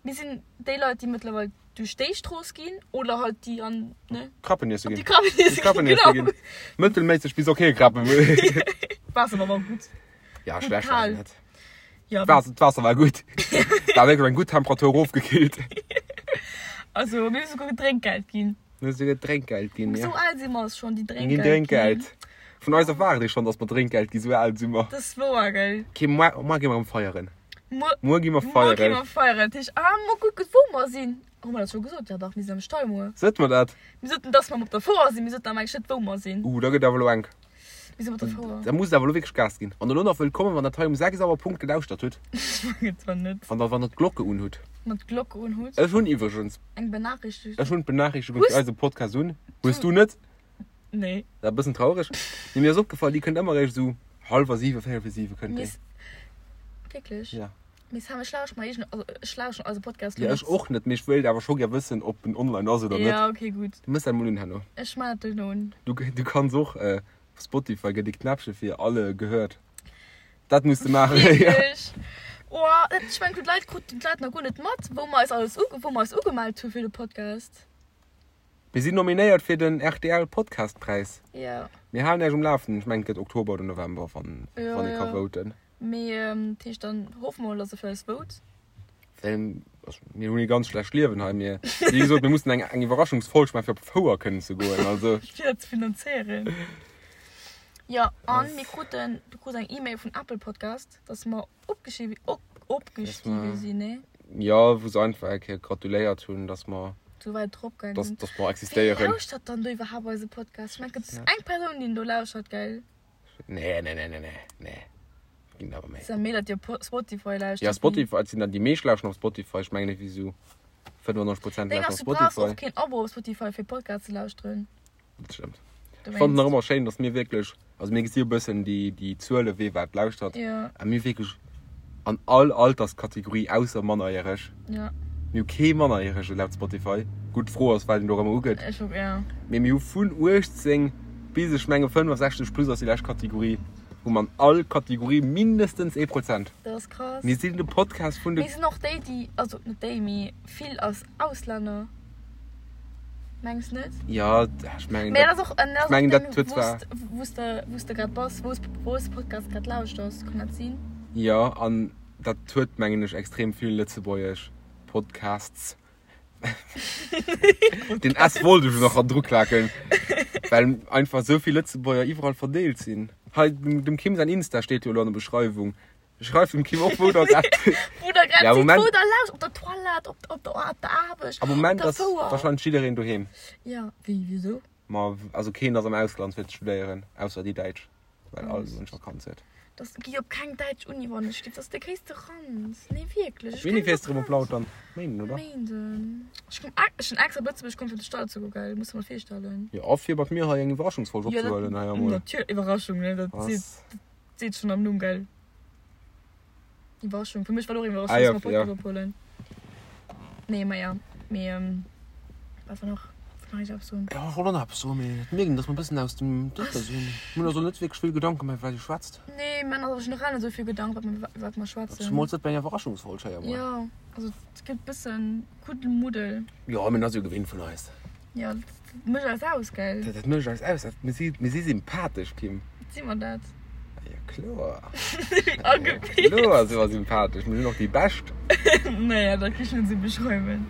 mir sinn déi Leit, déi mëttlerweil duerch déi Strooss ginn oder halt déi an, ne? Krappen iesse Op ginn. déi Krappen iesse Déi Krappen ginn, iesse genau. ginn. Mëttelméisseg bis okay Krappen. Waasser war awer gutt. Ja, Gutt schlecht war kal. se net. Ja, D'Waasser, d'Waasser war gutt. War wierklech eng gutt Temperatur erofgekillt. Also, mir hu souguer Drénkgeld ginn. Mir hu souguer Drénkgeld ginn, ja. Esou al si mer schonn, déi Mir Drénkgeld ginn Drénkgeld. Vun eis erwaart ee schonn, datt mer Drénkgeld ginn, esou al si mer. Dat ass wouer, gell? Okay, muer, muer gi mer erëm feieren. Muer, Muer gi mer muer gi feieren. mer feieren. Dat heescht, ah, muer kucken, wou mer sinn. Hu mer dat scho gesot? Ja dach, mir sinn am Stall muer. Sot mer dat? Mir soten, dass mer op der Fouer sinn. Mir soten awer eigentlich net, wou mer sinn. Uh, da gëtt awer elo enk. Mir sinn op der Fouer. Da muss et awer elo wierklech Gas ginn. Wann der elo nach wëllt kommen, wann der dat hei um 6 Auer Punkt gelauschtert hutt. Ech mengen zwar net. Wann der, wann der d'Glocke un hutt. Wann der d'Glocke un hutt. Ech hunn iwwregens. Eng Benachrichtigung. Ech hunn d'Benachrichtigung Hues. fir eise Podcast un. Hues du net? Nee. Dat ass e bëssen traureg. Mee mir ass opgefall, déi kënnt ëmmer eréischt esou hallwer siwe, véierel vir siwe kënnt déi. Miss. Wierklech? Ja. Mee Sam, ech lauscht mer eegen, also ech lauschten eise Podcast Ja, lo ech net. och net, mee ech wéilt awer scho gär wëssen, ob en online ass oder net. Ja, okay, gutt. Du mëss dat mol un herno. Ech man dat duerno un. Du, du kanns och äh, op Spotify gëtt e Knäppche fir alle gehört. Dat muss de maachen. ja. Wierklech? Oh, dat, ech mengen, d'Leit kruten d'Leit nach guer net mat, wou mer eis alles uge, wou mer eis ugemellt hu fir de Podcast. Mir sinn nominéiert fir den RTL Podcastpräis. Ja. Mir halen Iech um Lafenden. Ech mengen, et gëtt Oktober oder November, wann, Ja, wann ee ka ja. voten. Mee dat heescht, dann hoffe mer mol, dass e fir eis vote. Well, also, mir hunn ee ganz schlecht Liewen hei. Mir, wéi gesot, mir mussen eng, eng Iwwerraschungsfolg maachen, fir op d'Fouer kënnen ze goen. Also. Fir dat ze finanzéieren. Jo, an mir kruten, du krus eng E-Mail vun Apple Podcast, dass mer opgeschiwe, op, opgestiwe sinn, nee? Jo, wou se einfach eng Kéier gratuléiert hunn, dass mer, Sou wäit drop gaangen dass, sinn. dass mer Wee existéieren. lauschtert dann do iwwerhaapt eise Podcast? Ech mengen, et gëtt eng Persoun, déi en do lauschtert, gell? Nee, nee, nee, nee, nee, nee. Ginn awer méi. Ass ja méi, datt Dir Spotify lauschtert. Ja, Spotify, et sinn dann déi meescht lauschteren op Spotify. Ech mengen ewéi sou 95 Prozent Deng lauschteren ass, op du brauchs Spotify. och keen Abo op Spotify fir Podcast ze lauschteren. Dat stëmmt. Ech fannen nach ëmmer schéin, datt mir wierklech, also mir gesi jo e bëssen déi, déi Zuele wee wat lauschtert. Ja. A mir wierklech an all Alterskategorie ausser Mannerjäreg. Ja. Mir hu kee Mannerjärege laut Spotify. Gutt, d'Fro ass, wat een do erëm ugëtt. Ech och, ja. Mee mir hu vun 18 bis, ech menge 65 plus ass déi lescht Kategorie, hu mer an all Kategorie mindestens ee Prozent. Dat ass krass. Mir sinn de Podcast vun de. Mir sinn och déi, déi, also net déi, mee vill als Auslänner. Mengs net? Jo, ech mengen dat. Mee dat ass och, ech mengen dat huet zwar. Wou s de, wou s de grad bass, wou s, wou s de Podcast grad lauschters, kann dat sinn? Jo, an dat huet mengen ech extrem vill lëtzebuergesch Podcasts. Den S wollt ech nach ran druklaken, well einfach esou vill Lëtzebuerger iwwerall verdeelt sinn. Hei dem Kim säin Insta steet jo elo an der Beschreiwung. Schreift dem Kim och wou der grad Wou der grad Ja, sidd, Moment. wou der lauscht, op der Toilette, op, op der, op der Aarbecht, Am op Moment der ass Fouer. wahrscheinlech jiddereen doheem. Ja, wéi, wisou? Ma also keen ass am Ausland fir ze studéieren, ausser déi Däitsch, well all Mënsch Vakanz huet. Das gi op keng däitsch Uni wann ech giff, das ass de gréisste Ranz. Nee wierklech, ech Wéini kenne fiers de de rëm op Ranz. Lautern? Méinden, oder? Méinden. Ech komm, ech sinn extra op Lëtzebuerg komm fir op de Stall ze goen, gell, muss de mer virstellen. Jo, a fir mat mir hei eng Iwwerraschungsfolg Ja, dat, opzehuelen hei emol. natierlech, Iwwerraschung, ne, dat seet, Was? dat seet schonn am Numm, gell. Iwwerraschung, fir mech war och Iwwerraschung, Ah, ja, dass mer Podcast ja. ophuelen. Nee, ma ja, mee, ähm, wat war nach, wat nach eppes soen? Ja, ech wollt och nach eppes soen, mee et mierkt een, dass mer e bëssen aus dem Dëppe sinn. Mir hunn also net wierklech vill Gedanken gemaach, iwwer wat ee schwätzt. Nee, mir maachen eis generell net esou vill Gedanken, wat mer, wat mer schwätzen. Zemools net bei enger Iwwerraschungsfolg hei emol. Ja, also et gëtt e bëssen Kuddelmuddel. Jo, mee dat ass jo gewinnt vun eis. Ja, dat mécht eis aus, gell? Dat mécht eis aus. Mir si, mir si sympathesch, Kim. Si mer dat? Ja, kloer. Agebilt. Kloer si mer sympathesch. Mir sinn och déi Bescht. Naja, dat kann ech net esou beschreiwen.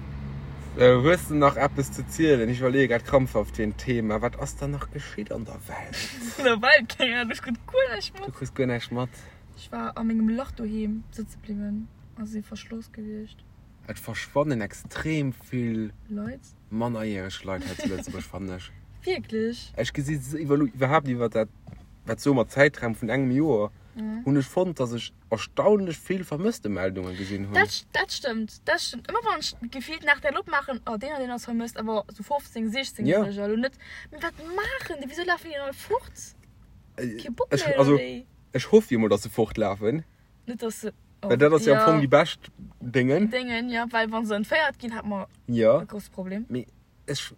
Sou, hues de nach eppes ze zielen? Ech iwwerleeë grad krampfhaft fir en Thema. Wat ass dann nach geschitt an der Welt? An der Welt? Keng Ahnung, ech krut guer näischt Du mat. kriss guer näischt mat. Ech war a mengem Lach doheem sëtze bliwwen a si verschloss gewiescht. Et verschwannen extrem vill Leit. mannerjäreg Leit hei zu Lëtzebuerg, fannen ech. Wierklech? Ech gesi se iwwer iwwerhaapt iwwer dat, wat soe mer, Zäitraum vun engem Joer, hunn ech fonnt, dass ech erstaunlech vill Vermësstemeldunge gesinn hunn. Dat, dat stëmmt, dat stëmmt. Ëmmer wann ech gefillt nach dat opmaachen, oh deen an deen ass vermësst, awer sou 15, 16 Ja. Järeger elo net. Mee wat maachen déi? Wisou lafen déi dann all fort? Kee Bock Ech, méi oder also, wéi? ech hoff jo mol, dass se fortlafen. Net dass se. Well dat ass jo am Fong déi bescht Déngen. Déngen, jo, well wa se entféiert ginn, hat mer Jo. e grouse Problem. Mee ech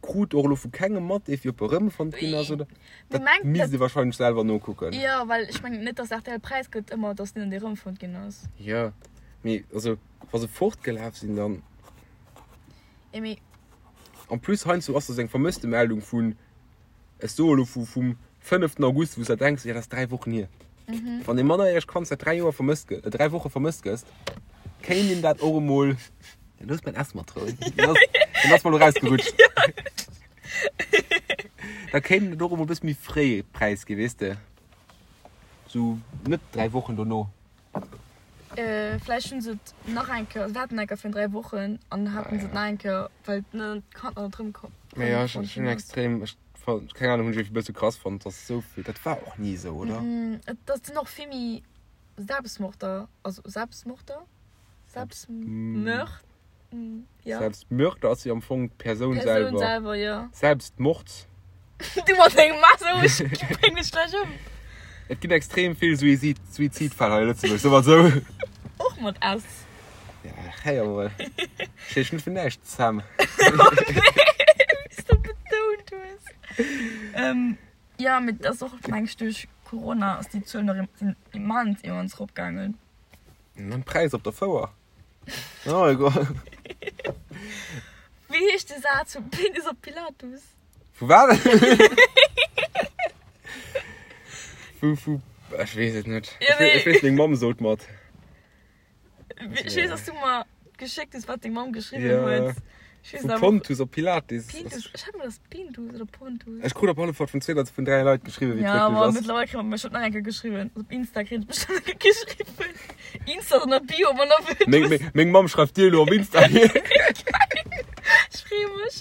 krut och elo vu kengem mat, dee fir op erëmfonnt ginn ass oder. Mee Dat mengt misst dat. ee wahrscheinlech selwer nokucken. Jo, well ech mengen net, dass rtl Präis gëtt ëmmer, dass deen an dee erëmfonnt ginn ass. Jo, mee also wa se fortgelaf sinn, dann. Jo, mee. En plus heiansdo ass do sou eng Vermësstemeldung vun. Ech soe lo vu vum fënneften August, wou s de denks, jo dat ass 3 Wochen hier. Wann ee mannerjäregt Kand säit 3 Joer vermësst gëtt, 3 Woche vermësst gëss, kéint een dat och emol, ja looss mäin S mat rouen, deen ass, deen ass mer lo rausgerutscht. Da kéint een et och emol e bësse méi fréi präisginn, weess de, sou net 3 Wochen dono. Vläicht hunn se et nach eng Kéier, se haten eng Kéier virun 3 Wochen an haten se et nach eng Kéier, well d'Kand nach net erëmkomm Mee jo, ech hunn extrem, ech keng Ahnung, hunn ech e bësse krass fonnt, dass esou vill, dat war och ni esou, oder? Et ass sinn och vill méi Selbstmorder, also Selbstmorder? Selbstmörd? Ja. Selbstmörder ass jo am Fong d'Persoun selwer. Persoun selwer, jo. Selbstmord. Du mat dengem Messer, ech bréng dech gläich ëm. Et ginn extrem vill Suizid, Suizidfäll hei a Lëtzebuerg, soe mer esou. Och mat S. Ja, héier mol. Ech heeschen net fir näischt Sam. Oh nee, wéi s de betount hues. Jo, mee et ass och, meng ech, duerch Corona ass déi Zuel nach sinn immens, immens eropgaangen. An d'Präisser op der Fouer. Oh egal. Wéi heescht de Saz vum Penis op Pilatus? Vu wat? Vu, vu, ech weess et net. Ja, nee. Ech weess, meng Mamm sot mat. Ech weess, dass du mer geschéckt hues, wat deng Mamm geschriwwen Ja. huet. Ech weess Vu awer. Pontus op Pilates. Pintus, ech hat mer das Pintus oder Pontus. Ech krut op alle Fall vun zwee oder vun dräi Leit geschriwwen, wéi et Ja, wierklech aber ass. mittlerweile kritt man bestimmt nach eng Kéier geschriwwen. Op Insta kritt ech bestimmt nach eng Kéier geschriwwen. Insta ass an der Bio, wann der wëllt Meng, meng, meng Mamm schreift dir elo op Insta. Ech freeë mech.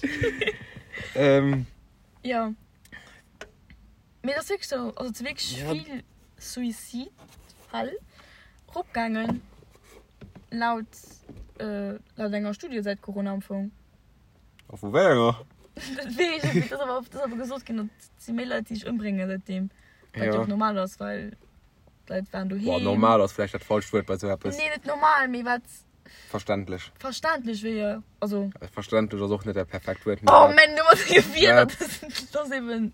ähm, Ja. Mee et ass wierklech sou, also et si wierklech Ja. vill Suizidfäll eropgaangen laut, äh, laut enger Studie säit Corona am Fong. A vu wéi enger? Dat weess ech net, mee et ass awer, et ass awer gesot ginn, datt et si méi Leit, déi sech ëmbréngen säitdeem. Wat jo Ja. och normal ass, well d'Leit waren Boah, doheem. normal ass vläicht dat falscht Wuert bei sou eppes. Nee, net normal, mee wat Verständlech. verständlech wier. Also. Verständlech ass och net dat perfekt Wuert. Oh man, du mat denge Wierder, Wat? dat ass eben.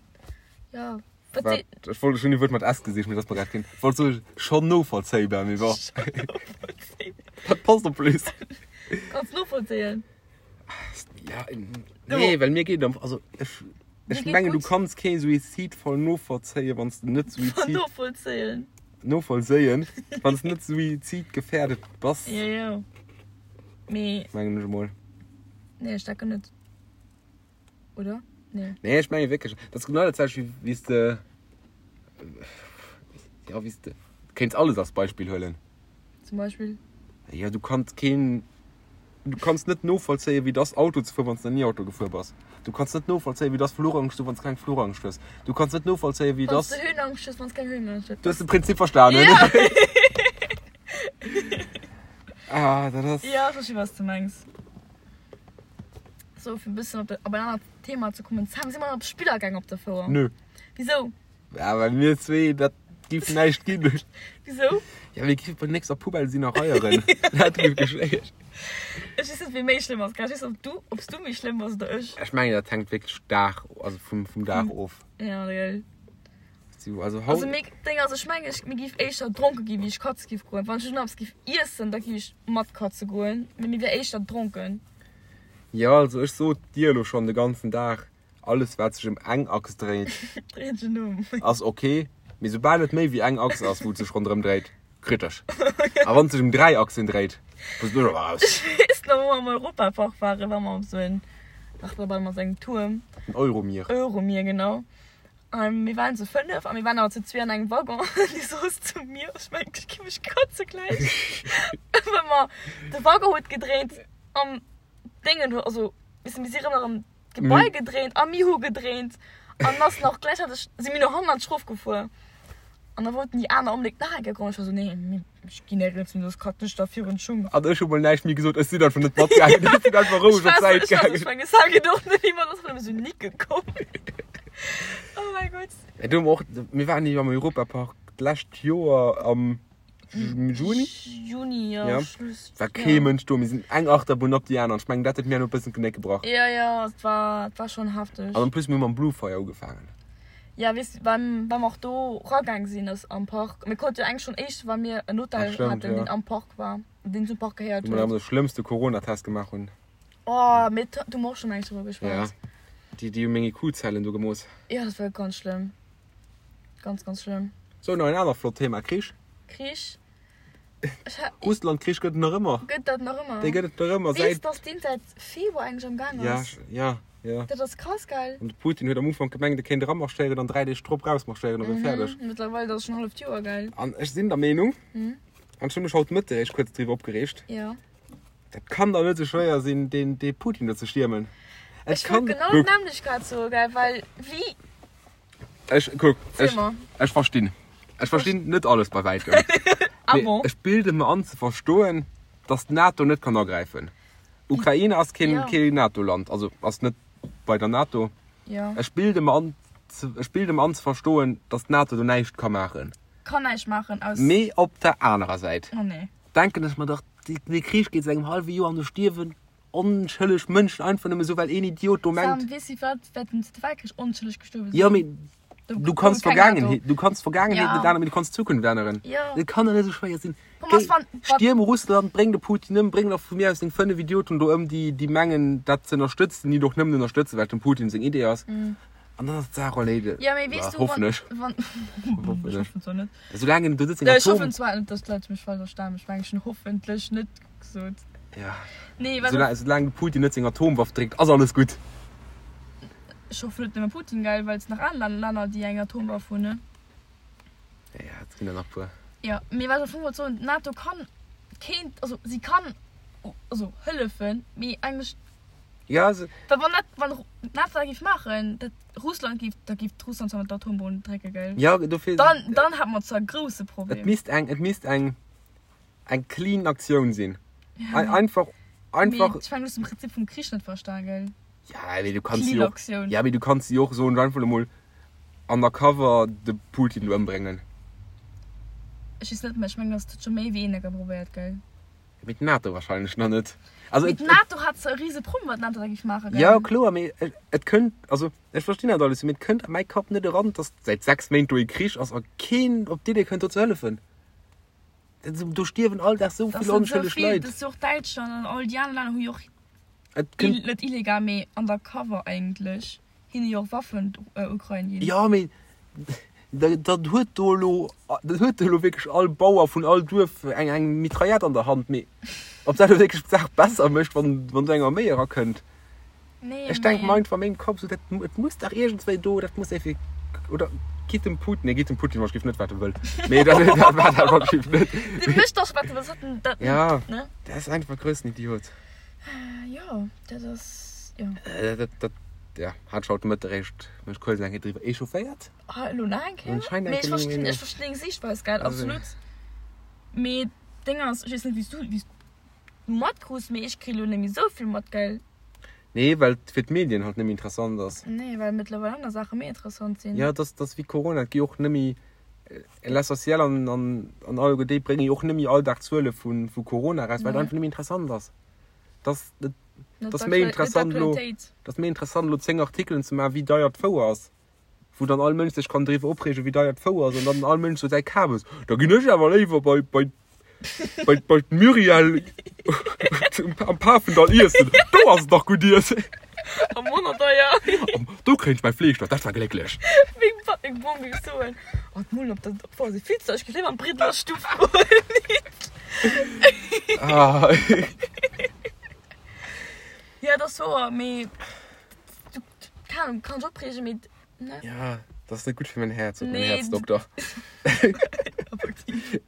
Ja. Wat Wat? Ech wollt schon e Wuert mat S gesicht, mee dat ass mer grad keen. Ech wollt soe schon novollzéibar, mee bon. Dat passt en plus. Kanns novollzéien. Ja, nee, well mir geet am, also ech, ech mengen, du kanns kee Suizid voll novollzéien, wann s de net Suizid. Novollzéien. Novollzéien, wann s de net suizidgefährdet bass. Jo, jo. Mee. Mengen ech emol. Nee, ech denken net. Oder? Nee. Nee, ech menge wierklech, dat ass genau dat selwecht wéi wéi s de, ja, wéi s de, kéints alles als Beispill huelen. Zum Beispill? Ja, du kanns keen, du kanns net novollzéien, wéi et ass Auto ze fueren, wann s de nach ni Auto gefuer bass. Du kanns net novollzéien, wéi et ass Fluchangst ze hunn, wann s de keng Fluchangst hues. Du kanns net novollzéien, wéi et Wann s ass. de Höhenangst hues, wann s keng Höhenangst hues. Du hues de Prinzip verstanen. Ja. Ah, dat ass. Ja, ech versti wat s de mengs. So, fir e bëssen op, op en anert Thema ze kommen. Sam, si mer op Spiller gaang op der Fouer? Nö. Wisou? Ja, well mir zwee, dat giff näischt ginn. Wisou? Ja, mir giffe bei nächster Poubelle sinn a reieren. Dat giff geschéien. Ech weess net, wie méi schlëmm ass. Ech weess net, ob du, ob s du méi schlëmm bass oder ech. Ech mengen, dat hänkt wierklech Dag, also vum, vum Dag of. Ja, gell. So, also haut. Also mir, Ding ass, ech mengen, ech, mir giff éischter dronke ginn, wéi ech katze giff goen. Wann ech elo nach eppes giff iessen, da giff ech mat katze goen, mee mir wär éischter dronken. Jo, also ech sot dir elo schonn de ganzen Dag, alles wat sech ëm eng Achs dréit, Dréit sech ëm. ass ok, mee soubal et méi wéi eng Achs ass, wou et sech ronderëm dréit, kritesch. A wann et sech ëm 3 Achsen dréit, bass du awer raus. Ech weess nach, wou mer am Europapark waren, ware mer op esou en Achterbahn mat engem Tuerm. Den Euromir. Euromir, genau. A mir waren zu 5 a mir waren awer zu zwee an engem Waggon. An déi soss zu mir, ech mengen, ech gi mech kotze gläich. Well mer, de Waggon huet gedréint an d'Déngen huet, also, weess de, mir si rëm erëm d'Gebai gedréint a mir hu gedréint. An ass nach gläichzäiteg si mir no hannert erofgefuer. An da wollten déi aner onbedéngt nach eng Kéier goen. Ech war sou, nee, ech ginn néierens hin, soss kratzen ech der virun d'Schung. An ech hu mol näischt méi gesot, ech sinn einfach net matgaangen, ech sinn einfach roueg op d'Säit gaangen. Ech mengen, ech hat och net iwwer, ass nëmme sou nicke komm. Oh mäi Gott. Ja, do hu mer och, mir waren jo am Europapark d'lescht Joer am Juni. Juni, jo. Ja. Schluss. War kee Mënsch do, mir sinn eng Achterbunn op déi aner an ech mengen, dat huet mir elo e bëssen d'Genéck gebrach. Jo, jo, et war, et war schonn hefteg. An en plus, mir hu mam Blue Fire ugefaangen. Ja, weess du, well, well mer och do ragaang sinn ass am Park. Mir konnte jo eigentlich schon éischt, well mir en Hotel Ah, stimmt, haten, ja. deen am Park war, deen zum Park gehéiert Wou mer huet. de schlëmmste Corona-Test gemaach hunn. Oh, mir, do hu mer och schon eng drüber Ja. geschwat. Déi, déi hu meng IQ-Zellen do gemooss. Ja, dat war ganz schlëmm. Ganz, ganz schlëmm. So, nach en anert flott Thema, Krich. Krich. Ech ha, Russland-Krich gëtt et nach ëmmer. gëtt dat nach ëmmer? Dee gëtt et nach ëmmer Weess, säit. dass deen säit Februar eigentlich am Gaang Ja, ass? ja, ja. Dat ass krass, gell? An de Putin huet am Ufank gemengt, e kéint eramarschéieren an 3 Deeg drop rausmarschéieren a wier fäerdeg. Mhm, Mittlerweile dat ass schon halleft Joer, gell? An ech sinn der Meenung, Mhm. an ech hu mech haut Mëtteg eréischt kuerz driwwer opgereegt, Ja. dat kann dach net esou schwéier sinn, deen, dee Putin do ze stiermen. Et Ech wollt kann, genau kuck, d'nämmlecht grad soen, gell? Well wéi ech, kuck, Zähl ech, mer. ech verstinn. Ech verstinn net alles bei wäitem. Ah Mee bon? ech bilde mer an ze verstoen, dass d'NATO net kann agräifen. Ukraine ass keen, Ja. keen NATO-Land, also ass net bei der NATO. Ja. Ech bilde mer an, ze, ech bilde mer an ze verstoen, dass d'NATO do näischt ka maachen. Kann näischt maachen aus. Mee op der anerer Säit Oh nee. denken ech mer dach, dee Krich geet säit engem hallwe Joer an do stierwen onschëlleg Mënschen einfach nëmme sou, well een Idiot do mengt. Sam, weess du wat während dem Zweite Weltkrich onschëlleg gestuerwe sinn? Jo, mee Do du gouf kanns et keng d'Vergaangenheet, NATO. du kanns d'Vergaangenheet Ja. net änneren, mee du kanns d'Zukunft änneren. Ja. Et kann doch net esou schwéier sinn. Komm, was Géi, wann, wat, stierm Russland, bréng de Putin ëm, bréng nach vu mir aus deng 5 Idioten do ëm, déi, déi mengen, dat ze ënnerstëtzen, déi et och nëmmen ënnerstëtzen, well et dem Putin seng Idee ass. An dann ass d'Saach erleedegt. Mm. Ja, mee weess du, Hoffen wann, ech. wann, Hoffen ech ech. hoffen zwar net. Soulaang en do sëtzt, Ech Atom. hoffen zwar net, dass d'Leit mech falsch verstanen, ech mengen, ech hunn hoffentlech net gesot. Ja. Nee, wat. Soulaang, soulaang de Putin net seng Atomwaff dréckt, ass alles gutt. Ech hoffen net nëmme Putin, gell, well et sinn nach aner Länner, déi eng Atomwaff hunn, ne? Ja, et ginn der nach puer. Jo, mee wat ech am Fong wollt soen, d'NATO kann, kéint, also si kann, also hëllefen, mee eigentlech. Ja, se. Well wann dat, wann d'NATO dat géif maachen, dat Russland géif, da géif Russland zwar mat der Atombomb drécke, gell? Ja, dofir. Dann, dann hätt mer zwar e grousse Et Problem. misst eng, et misst eng, eng clean Aktioun sinn. Einfach, einfach. Mee ech mengen, du hues den Prinzip vum Krich net verstan, gell? Ja, mee du kanns Clean jo och, Aktioun. ja, mee du kanns jo och soen, einfach emol undercover de Putin do ëmbréngen. Ech weess net, mä ech mengen, dass dat scho méi wéi een enker probéiert, gell? Mee d'NATO wahrscheinlech nach net. Also, Mee et, et, d'NATO hat zwar e rise Problem, wat d'NATO da géif maachen, ja, gell? kloer, mee et, et kënnt, also ech verstinn dat alles, mee et kënnt a mäi Kapp net eran, dass säit 6 Méint do e Krich ass a keen op d'Idee kënnt do ze hëllefen. Do stierwen all Dag sou Das vill sind so onschëlleg vill, Leit. das ist och Däitschland an all déi aner Länner hu jo och Et ill, kënnt. net illegal, mee undercover eigentlech, hinne jo och Waffen der Ukrain ginn. Jo, mee da, dann huet do elo, dann huet do elo wierklech all Bauer vun all Duerf eng, eng Mitraillette an der Hand. Mee ob dat elo wierklech d'Saach besser mécht, wann, wann do eng Arméi erakënnt? Nee, Ech denke mee. mer einfach a mengem Kapp sou, dat, et muss dach iergendswéi do, dat muss effek, oder gitt dem Putin, nee, gitt dem Putin wahrscheinlich net, wat e wëll. Mee dat, dat war dat wahrscheinlich net. Dee mécht dach, wat e wëll, dat, dat, Ja, ne? dat ass einfach e groussen Idiot. Jo, dat ass, jo. Dat, dat, ja, hat ech haut de Mëtteg eréischt mech kuerz eng Kéier driwwer echaufféiert. Ah, elo nach eng Kéier? Anscheinend Mee ech eng Kéier verstinn, méi. ech verstinn deng Siichtweis, gell, Also. absolut. Mee d'Déng ass, ech weess net, wéi s du, wéi s du matkruss, mee ech kri elo net méi esou vill mat, gell? Nee, well et fir d'Medien halt net méi interessant ass. Nee, well mëttlerweil aner Saache méi interessant sinn. Ja, dat ass wéi Corona, et gi och net méi, l'essentiel an, an, an alleguer déi brénge jo och net méi all Dag Zuele vu, vu Corona eraus, well et Nee. einfach net méi interessant ass. Dat, dat Net ass méi d'Aktual- net interessant elo, d'Aktualitéit. dat ass méi interessant elo 10 Artikelen ze maachen, wéi deier d'Fouer ass. Wou dann all Mënsch sech kann driwwer opreegen, wéi deier d'Fouer ass an dann all Mënsch sou säi Kabes, da ginn ech awer léiwer bei, bei, bei, bei d'Muriel am Pafendall iessen, do ass et dach gutt iessen. Am manner deier. Am, do kréien ech mäi Fleesch, dat war glécklech. Meng Papp, meng Bom géif soen, oh d'Mullen op der Fouer si vill ze deier, ech géif léiwer an d'Briddeler Stuff goen. Ah. Ja, dat ass wouer, mee du, Keine Ahnung, kann ech opreegen, mee ne? Ja, dat ass net gutt fir mäin Häerz, sot mäin Nee, Häerzdokter. Effektiv.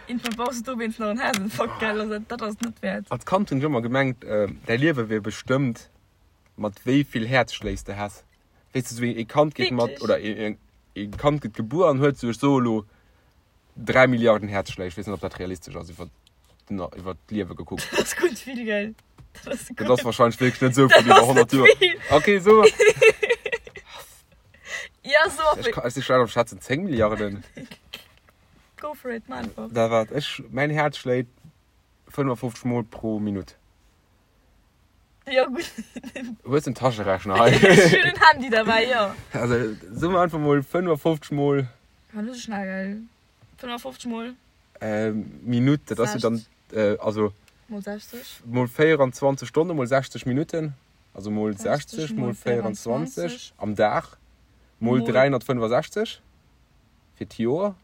Irgendwann brauchst du dowéinst nach en Häerzinfarkt, gell? Also dat ass net wäert. Als Kand hunn ech ëmmer gemengt, däi Liewe wier bestëmmt mat wéi vill Häerzschléi s de häss. Weess de, sou ee Kand geet mat, Wierklech? oder ee Kand gëtt gebuer an huet sou, ech soe lo, 3 Milliarden Häerzschléi. Ech weess net, ob dat realistesch ass iwwer den, iwwer d'Liewe gekuckt. Dat ass gutt vill, gell? Dat ass Dat ass gutt. wahrscheinlech wierklech net esou vill Dat iwwer ass 100 net Joer. vill. Okay, so. Ja, so Ech ka, ech si schlecht am Schätzen, 10 Milliarden. Go for it, mach einfach. Da waart, ech, mäin Häerz schléit 55 Mol pro Minutt. Ja, gutt. Hues en Taschenrechner hei? Ech hunn en Handy derbäi, jo. Also, soe mer einfach mol 55 Mol. War net esou schnell, gell? 55 mol. Minutt, dat ass jo dann, also. Mol 60. Mol 24 Stonne mol 60 Minutten, also mol 60 mol 24 am Dag, mol 365 fir d'Joer,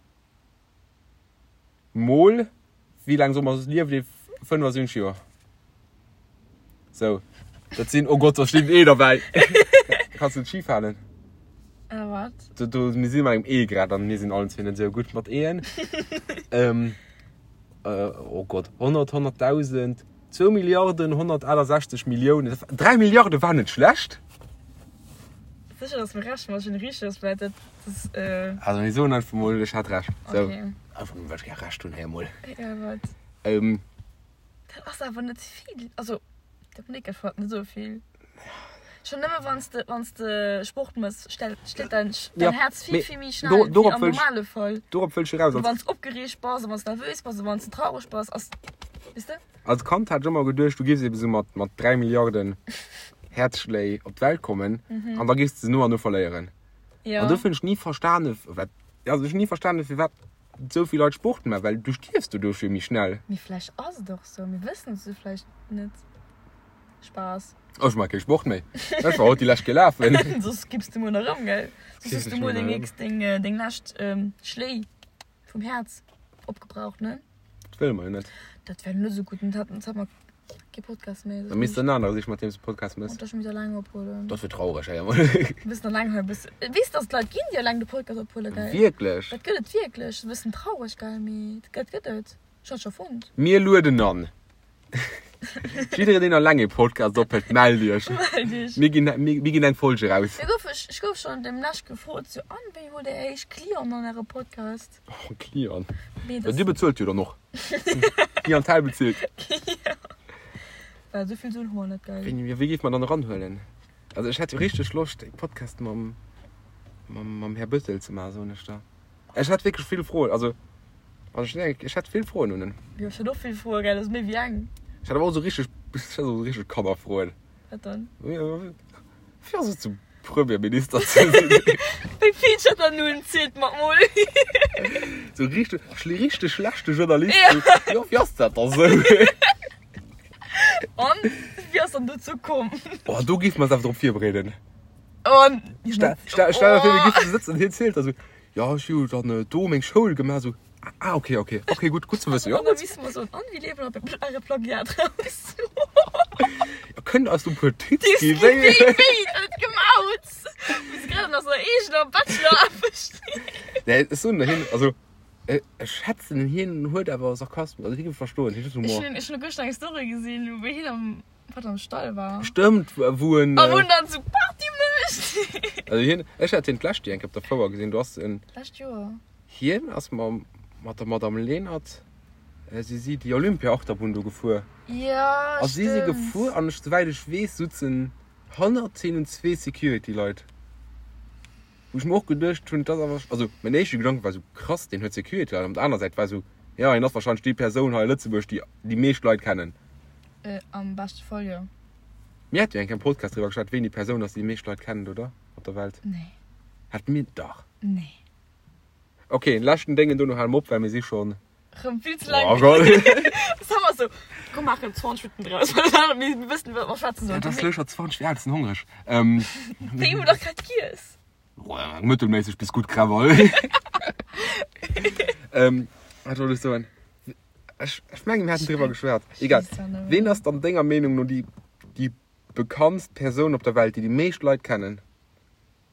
mol, wéi laang soll mer liewen, 75 Joer. Sou, dat sinn, oh Gott, do steet en E derbäi. Kanns du et schif halen? Äh, wat? Do, do, mir si bei engem E grad an mir sinn allen zwee net esou gutt mat E'en. ähm, äh, oh Gott, 100, 100.000, 2 Milliarden, 168 Milliounen, 3 Milliarde war net schlecht. Sécher, dass mir Recht mat hunn, richteg ass, well dat, das, äh. Also mir soen einfach mol, ech hat Recht. Sou. Okay. Einfach nëmmen, well ech gär Recht hunn, héier mol. Ja, wat? Ähm. Dat ass awer net vill. Also, dat Monique erfährt net esou vill. Schon nëmme wann s de, wann s de Sport mëss, stellt, schléit dein, dein Ja, Herz vill, mee vill méi schnell do, wéi dorop am wëll ech, normale Fall. dorop wëll ech eraus. Oder Als, wann s opgereegt bass, oder wann s nervös bass, oder wann s traureg bass, ass, weess de? als Kand hat ech ëmmer geduecht, du giffs ebe sou mat, mat 3 Milliarden Häerzschléi op d'Welt kommen an da giffs de se no an no verléieren. An Ja. dofir hunn ech ni verstane, wat, also ech hunn ni verstane firwat esou vill Leit Sport maachen, well du stierfs doduerch jo méi schnell. Mee vläicht ass et och sou, mir wëssen et sou vläicht net. Spaass. Ech maache kee Sport méi. Ech war haut déi lescht gelafen. Soss kippst de muer nach erëm, gell? Soss hues du muer deng nächst, deng, deng lescht Schléi vum Häerz opgebraucht, ne? Dat wëlle mer jo net. Dat wär net esou gutt. Dat hat, dat hat mer. Kee Podcast méi. Da misst en anere sichen, mat deem s de Podcast mëss. Dat ech eleng ophuelen. Dat wier traureg, hei emol. E bëssen eleng hei, e bëssen. Weess dass et Leit ginn, déi eleng de Podcast ophuelen, gell? Wierklech? Dat gëtt et wierklech. E bëssen traureg, gell, mee dat gëtt et. Ech hat scho fonnt. Mir lueden an. Jiddereen, deen eleng ee Podcast ophëlt, mellt iech. Mellt iech. Mir ginn, mir ginn eng Folge eraus. Mir gouf, ech gouf schonn demnächst gefrot, sou, An, wéi hutt Dir éischt Clienten an Äre Podcast? Oh, Client. Mee Ja, das. Dir bezuelt jo dann och. Clientèle bezilt. Ja. Well esou vill Suen hu mer net, gell? Wéi, wéi géif mer dann eranhuelen? Also ech hätt jo richteg Loscht e Podcast mam, mam, mam Här Bëttel ze maachen, soen ech der. Ech hätt wierklech vill Froen, also, also ech, ech hätt vill Froen un en. Jo, ech hätt och vill Froen, gell? Dat ass méi wéi eng. Ech hätt awer och esou richteg, ech hätt och esou richteg Kannerfroen. Wat dann? Wéi ass et sou Premierminister ze sinn? Wéi vill huet der nun? Zielt mer mol. Sou richteg, richteg schlechte Journalist. Ja. Jo, wéi ass dat da sou? An wéi ass dann dozou komm? Oh, do géife mer eis awer drop virbereeden. An Stell, stell, stell der vir, mir géifen sou sëtzen an hien zielt da sou, jo, ech hu dann do meng Schoul gemaach, sou. Ah, okay, okay. Okay, gutt, gutt ze wëssen. An da misste mer soen, an wéi liewen op äre Plagiat raus? Ja, kënnt eis do e puer Tipps Tipps ginn, ginn, wéi. wéi, wéi et gemaut? Mir si grad an eiser eegener Bachelor-Aarbecht. Nee, ech soen der hien, also ech schätzen hien huet awer Sarkasmus, also hie géif verstoen, hien huet Ech Humor. hunn, ech hunn gëschter eng Story gesinn, wou hien am, wat am Stall war. Stëmmt, wou en. A wou en dann sou Party mécht. Also hien, ech hat hien d'lescht Joer eng Kéier op der Fouer gesinn, do ass en. D'lescht Joer? Hien ass mam mat der Madame Lenert, si si déi Olympia-Achterbunn do gefuer. Jo, A si si stëmmt. gefuer an ech, souwäit ech weess, sutzen hannert hinnen zwee Security-Leit. Wou ech mer och geduecht hunn, dat ass awer, also mäin éischte Gedanke war esou, krass, deen huet Security-Leit. An op der aner Säit war esou, jo, hien ass warscheinlech déi Persoun hei a Lëtzebuerg, déi déi meescht Leit kennen. Am beschte Fall, jo. Mir hate jo eng Kéier am Podcast driwwer geschwat, ween déi Persoun ass, déi déi meescht Leit kennen, oder? Op der Welt. Nee. Hat mir, dach. Nee. Ok, leschten Déngen, dono hale mer op, well mir si schonn. Rëm vill ze laang. Oh Gott. Das haben wir so. Komm, maachen 20 Minuten draus. Mir wëssen, wat mer schwätzen sollen. Et ass elo scho 20 vir 8, ech sinn hongreg. Ähm. Wéi hu dach grad giess. Mëttelméisseg bis gutt Krawall. Ähm, wat wollt ech soen? Ech, ech mengen, mir haten driwwer geschwat. Egal. Ween ass dann denger Meenung no déi, déi bekanntst Persoun op der Welt, déi déi meescht Leit kennen?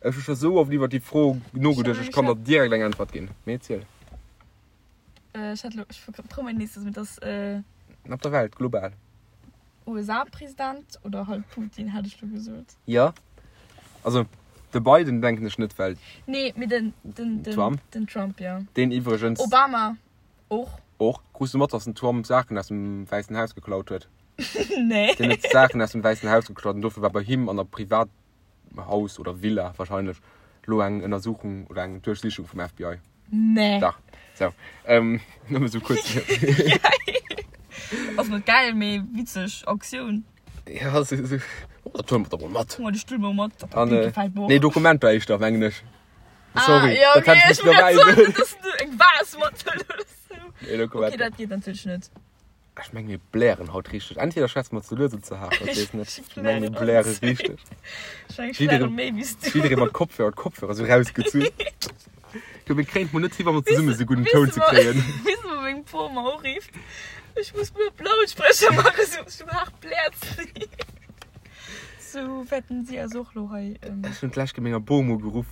Ech hu scho sou oft iwwert déi Fro nogeduecht, ech kann der direkt eng Äntwert ginn. Mee erziel. Ech hat elo, ech trau mech nees, mee dass. Op der Welt, global. USA-President oder halt Putin, hätt ech lo gesot. Jo. Also de Biden denken ech net, well. Nee, mee den, den, den. Trump. Den Trump, jo. Deen iwwregens. Obama och. Och. Krus du mat, dass den Trump Saachen aus dem Wäissen Haus geklaut huet? Nee. Deen huet Saachen aus dem Wäissen Haus geklaut an dofir war bei him an der Privat. Haus oder Villa wahrscheinlech lo eng Ënnersuchung oder eng Duerchsichung vum FBI. Nee. Dach. So. Ähm, nëmme sou kuerz. Ass net geil, mee witzeg Aktioun. Ja, so, so. Oh, dat huele mer da mol mat. Huel de Stull mol mat. Dat An, äh, gefält mer och. nee, Dokumenter éischter, mengen ech. Sorry, ah, ja, dat okay, hätt ech ech missen wollt dobäi grad soen, soen. dass du eng Vase mathëls oder sou. Nee, Dokumenter. Okay, dat geet natierlech net. Ech meng mir blären haut richteg. Entweder schwätze mer ze lues oder ze haart, ech weess net. Ech Ech meng mir blären bläre richteg. Ech meng ech Jiddereen- bläre méi wéi s du. Jidderee mat Kopfhörer, d'Kopfhörer sou rausgezunn. Du, mir kréien et mol net hi wa mer zesumme sou gudden Toun ze kréien. Weess de wou meng Bom mer urifft? Ech muss mol op Lautsprecher maachen, sou sou haart bläert si. Sou wäerten si eis och lo hei. Ech hunn d'lescht Kéier menger Bom ugeruff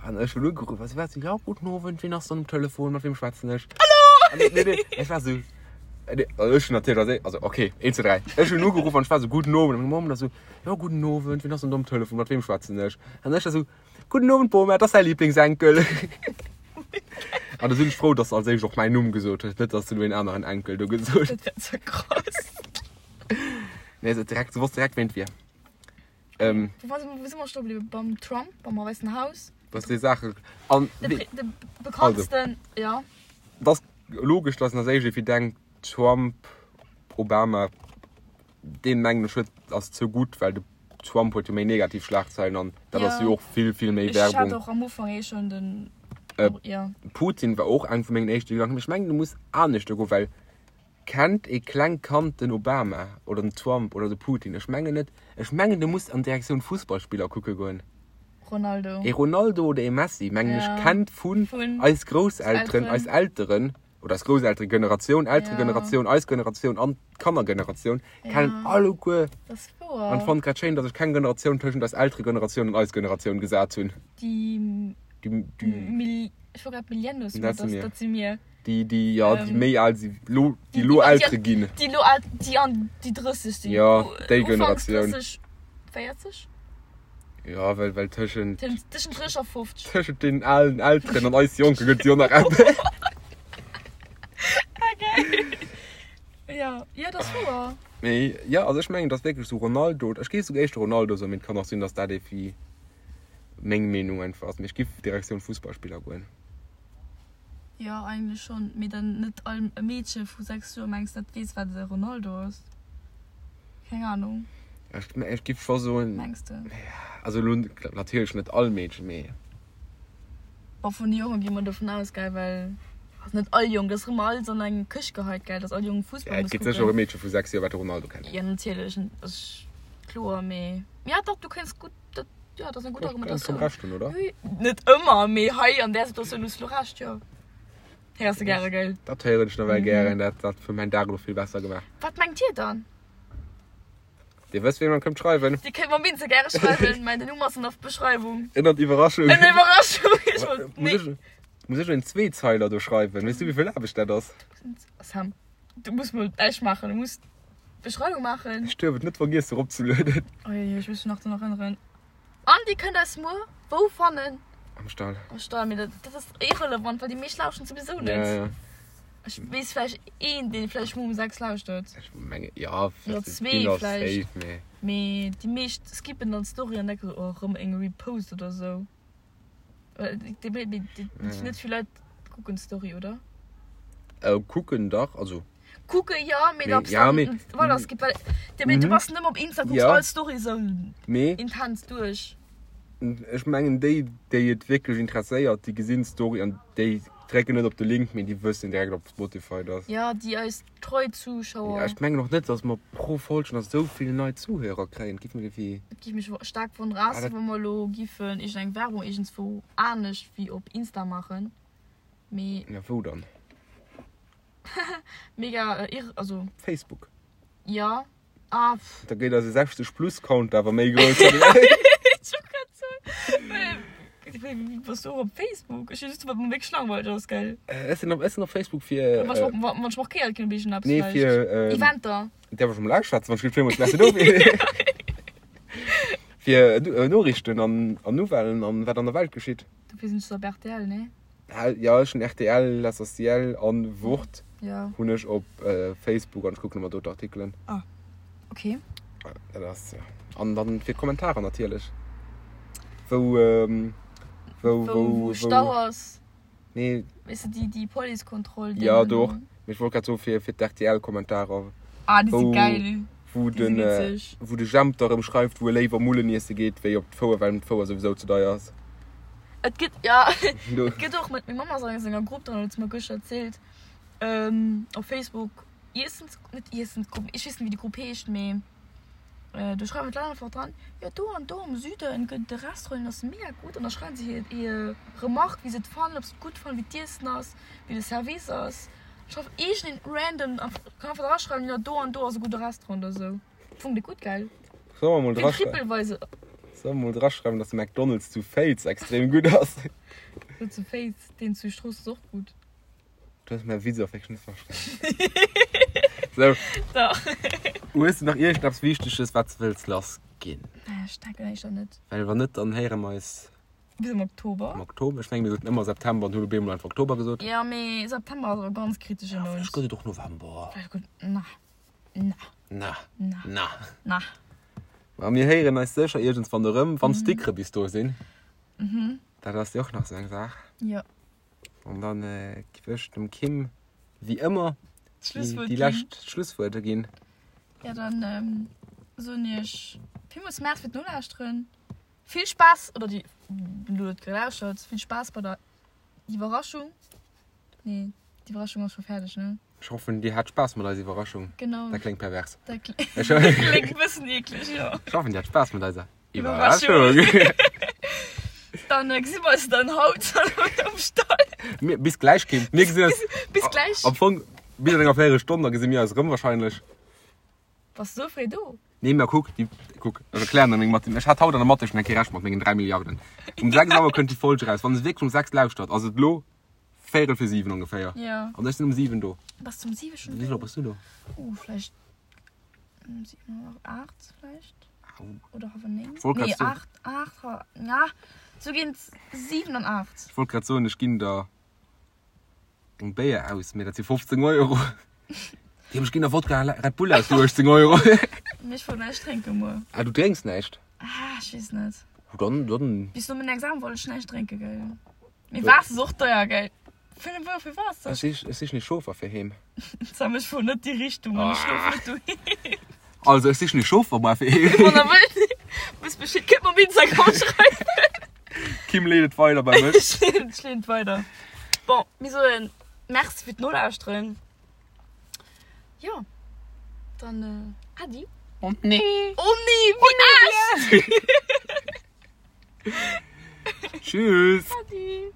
an ech hunn ugeruff a si war sou, jo guten Owend, wien ass dann um Telefon, mat wiem schwätzen ech? Hallo! Nee, nee, ech war sou, nee, also ech hunn natierlech als also okay, 1, 2, 3, ech hunn ugeruff an ech war sou, guten Owend, an meng Mamm da sou, jo guten Owend, wien ass dann do um Telefon, mat wiem schwätzen ech? An ech da sou, guten Owend Bom, dat ass däi Lieblingsenkel. An da sinn ech frou, dass se als éischt och mäin Numm gesot huet, net dass se lo een aneren Enkel do gesot huet. Dat wär ze krass. Nee, se direkt, se wosst direkt, ween et wier. Ähm, Wou war, wou si mer stoe bliwwen? Beim Trump, beim Wäissen Haus? dass déi Saache. An De, wee- Pre- de bekanntsten, ja. dat ass logesch, dass een als éischt irgendwie denkt, Trump, Obama, deen mengen ech huet, ass ze gutt, well de Trump huet jo méi negativ Schlagzeilen an dat Ja. ass jo och vill, vill méi Ech hat Werbung. och am Ufank eh schon den. Äh, ja. Putin war och eng vu mengen éischte Gedanken, mee ech mengen, du muss aneschter goen, well Kennt ee klengt Kand den Obama oder den Trump oder de Putin? Ech mengen net. Ech mengen du muss an Direktioun Fussballspiller kucke goen. Ronaldo. Ee Ronaldo oder ee Messi mengen ech Ja. kennt vun Vun eis Grousselteren, Elteren. eis Elteren. Oder eis Grousselteregeneratioun, Elteregeneratioun, eis Generatioun an d'Kannergeneratioun kennen alleguer. Dat ass wouer. An ech fannen et grad schéin, datt ech keng Generatioun tëschent eis Elteregeneratioun an eis Generatioun gesat hunn. Déi. Déi, déi. Ech wollt grad Millennials soen, Dat si mir. Dat si mir. Déi, déi, jo, déi méi al si, lo, déi lo Eltere ginn. Déi lo al, déi an déi 30 sinn. Jo, déi Generatioun. Ufanks 30, 40? Jo, well, well tëschent. Tëschent 30 a 50. Tëschent deenen alen Elteren an eis Jonke gëtt et jo nach eppes. Okay. Jo, jo, dat ass wouer. Mee jo, also ech mengen, et ass wierklech esou Ronaldo, ech géif souguer éischter Ronaldo soen, mee et kann och sinn, datt dat evi meng Meenung einfach ass, mee ech giff Direktioun Fussballspiller goen. Jo, eigentlech schonn, mee dann net all Meedche vu 6 Joer, mengs dat weess wat e Ronaldo ass? Keng Ahnung. Ech, ech giff scho soen. Mengs de? Also elo natierlech net all Meedchen, mee. Bon, vun de Jonge gi mer dovun aus, gell, well also net all Jong, dat ass erëm alles an eng Këscht geheit, gell, dass all Jong Fussball Ja, et muss gëtt sécher och e kucken. Meedche vu 6 Joer wat de Ronaldo kennt. Jo, natierlech, ass kloer, mee ja dach, du kéints gutt dat. Jo, dat ass eng gutt Argumentatioun. Komm Recht hunn, oder? Net ëmmer, mee hei an där Situatioun hues du lo Recht, jo. Héiers de gäre, gell? Dat héieren ech nawell gären. Dat dat huet mäin Dag elo vill besser gemaach. Wat mengt dir dann? Dir wësst, wéi mer kënnt schreiwen. Dir kënnt mer minze gäre schreiwen. Mäin Numm ass an der Beschreiwung. Ënnert Iwwerraschung. Ënner Iwwerraschung. Ech wollt, Muss nee. ech, muss ech en Zweezeiler do schreiwen? Weess du, wéi vill Aarbecht dat ass? Sam, du muss mol näischt maachen. Du muss Beschreiwung maachen. Ech duerf et net vergiessen eropzelueden. Oi, ech muss mech nach drun erënneren. An dir kënnt eis muer wou fannen? Am Stall. Am Stall, mee dat, dat ass irrelevant, well déi meescht lauschteren souwisou net. Ja, ja. Ech weess vläicht een, deen vläicht muer um 6 lauschtert. Ech menge, ja, Oder zwee vläicht. Safe, mee. Mee déi meescht skippen dann d'Story an denken sou, oh, erëm eng Repost oder sou. Well déi, déi, déi, déi, Ja. net vill Leit kucken d'Story, oder? Äh, kucken dach, also. Kucke jo, mee Mee, ob's ja, dann mee, voilà, es gibt, well, de, mee du Mhm. bass nëmme op Insta, kucks Ja. all Story sou Mee intens duerch. ech mengen déi, déi et wierklech interesséiert, déi gesinn d'Story an déi drécken net op de Link, mee déi wëssen direkt op Spotify, dass. Ja, déi eis treu Zuschauer. Ja, ech mengen och net, dass mer pro Folg nach sou vill nei Zuhörer kréien. Et géif mech iergendwéi. Et géif mech staark wonneren, Ah, ausser dat. wa mer elo giffen iergendeng Werbung iergendswou anescht wéi op Insta maachen. Mee. Ja, wou dann? Mega irr, also. Facebook. Ja. Ah, pff. Da geet eise 60 plus Count awer méi grouss. Ech wollt grad soen, well wéi bass du och op Facebook? Ech just wat mir wierklech langweileg ass, gell? Ech sinn op, ech sinn op Facebook fir. Wann ech wann ech markéiert ginn op iergendeppes Nee, vläicht. fir. Eventer. Däerf ech emol ausschwätzen, wann ech gleef villmools Merci dofir. Fir Noriichten an an Nouvellen an wat an der Welt geschitt. Dofir sinn ech op rtl, nee? Jo, ech hunn rtl, L'Essentiel an Wort Ja. hunn ech op Facebook an ech kucken ëmmer do d'Artikelen. Ah, okay. Dat ass, ja. An dann fir d'Kommentarer natierlech. Wou, wou, wou, Wou, wou Stau ass. Nee. Weess de, déi, déi Policekontroll. Ja, do och. Mee ech wollt grad soen, fir, fir d'RTL-Kommentarer. Ah, déi si geil. Wou den, wou de Jemp da rëm schreift, wou e léiwer Mullen iesse geet, wéi op d'Fouer, well em d'Fouer souwisou ze deier ass. Et gëtt, ja, et gëtt och, mat meng Mamm ass an enger Grupp dran, huet se mer gëschter erzielt, op Facebook, Iessens, net Iessensgrupp, ech weess net, wéi déi Grupp heescht, mee do schreiwen d'Leit einfach dran, jo do an do am Süden gëtt et e Restaurant, deen ass mega gutt, an da schreiwen se hir, hir Remarque, wéi se et fannen, ob se et gutt fannen, wéi d'Iessen ass, wéi de Service ass. Schreif iergendeen random, kann einfach draschreiwen, jo do an do ass e gudde Restaurant oder sou. Fong déi gutt, gell? Solle mer mol Fir draschreiwen? Trippelweise. Solle mer mol draschreiwen, dass de McDonald's zu Féiz extrem gutt ass? Jo, zu Féiz, deen zu Strooss ass och gutt. Du hues mäi Witz och wierklech net verstanen. Sou. Dach. Hues de nach iergendeppes Wichteges, wat s de wëlls lassginn? Nee, ech denken éischter net. Well wann net, dann héiere mer eis. Bis am Oktober. Am Oktober. Ech mengen, mir soten ëmmer September an hunn op eemol einfach Oktober gesot. Jo, mee September ass awer ganz kritesche Ja, Mount. vläicht gëtt et och November. Vläicht gëtt, na, na. Na. Na. Na. Na. Ma mir héieren eis sécher iergendswann erëm, wann d'Stickere bis do sinn. Mhm. Dat ass jo och nach esou eng Saach. Jo. An dann giff ech dem Kim wéi ëmmer D'Schlusswuert déi ginn. lescht Schlusswuerter ginn. Ja, dann soen iech villmools Merci fir d'Nolauschteren. Vill Spaass, oder déi elo et gelauschtert, vill Spaass bei der Iwwerraschung. Nee, d'Iwwerraschung ass scho fäerdeg, ne? Ech hoffen, dir hat Spaass mat eiser Iwwerraschung. Genau. Dat kléngt pervers. Dat kléngt e bëssen eekleg, jo. Ech hoffen, dir hat Spaass mat eiser Iwwerraschung. Iwwerraschung. Dann gesi mer eis dann haut um Stall. Mir, bis gläich, Kim. Mir gesinn eis. Bis gläich. Am Fong, bis an enger Véierelstonn, da gesi mir eis erëm wahrscheinlech. Bass du sou fréi do? Nee, mä kuck, déi, kuck, ech erklären der meng Mathe. Ech hat haut an der Mathe schon eng Kéier Recht mat mengen 3 Milliarden. Um 6 Auer kënnt déi Folg eraus. Wann se wierklech um 6 lauschtert, ass et elo véierel fir 7 ongeféier. Ja. An ech sinn um 7 do. Bass du um 7 schon Wéi vill do? Auer bass du do? Uh, vläicht um 7 oder 8 vläicht. Au. Oder halwer 9. Ech wollt grad Nee, soen. 8, 8, na, sou géint 7 an 8. Ech wollt grad soen, ech ginn der eng Béier aus, mee dat si 15 Euro. Déi ech ginn der Wodka Red Bull aus fir 18 Euro. Mee ech wollt näischt drénken muer. Ah, du drénks näischt? Ah, ech weess net. Oh, dann, dann. Bis no mengem Examen wollt ech näischt drénken, gell. Mee Waasser ass och deier, gell. 5 Euro fir Waasser. Ech sich, ech sichen ee Chauffer fir heem. Sam, ech fuer net déi Richtung an ech schlof net doheem. Also, ech sichen ee Chauffer muer fir heem. Wann der wëllt, wësst Bescheed, kënnt mer op Instagram schreiwen. Kim leet et weider bei mech. Ech leeden, ech leeden et weider. Bon, mir soen Merci fir d'Nolauschteren. Jo, dann Äddi. Oh nee. Oh nee, wéi echt! Tschüss. Äddi.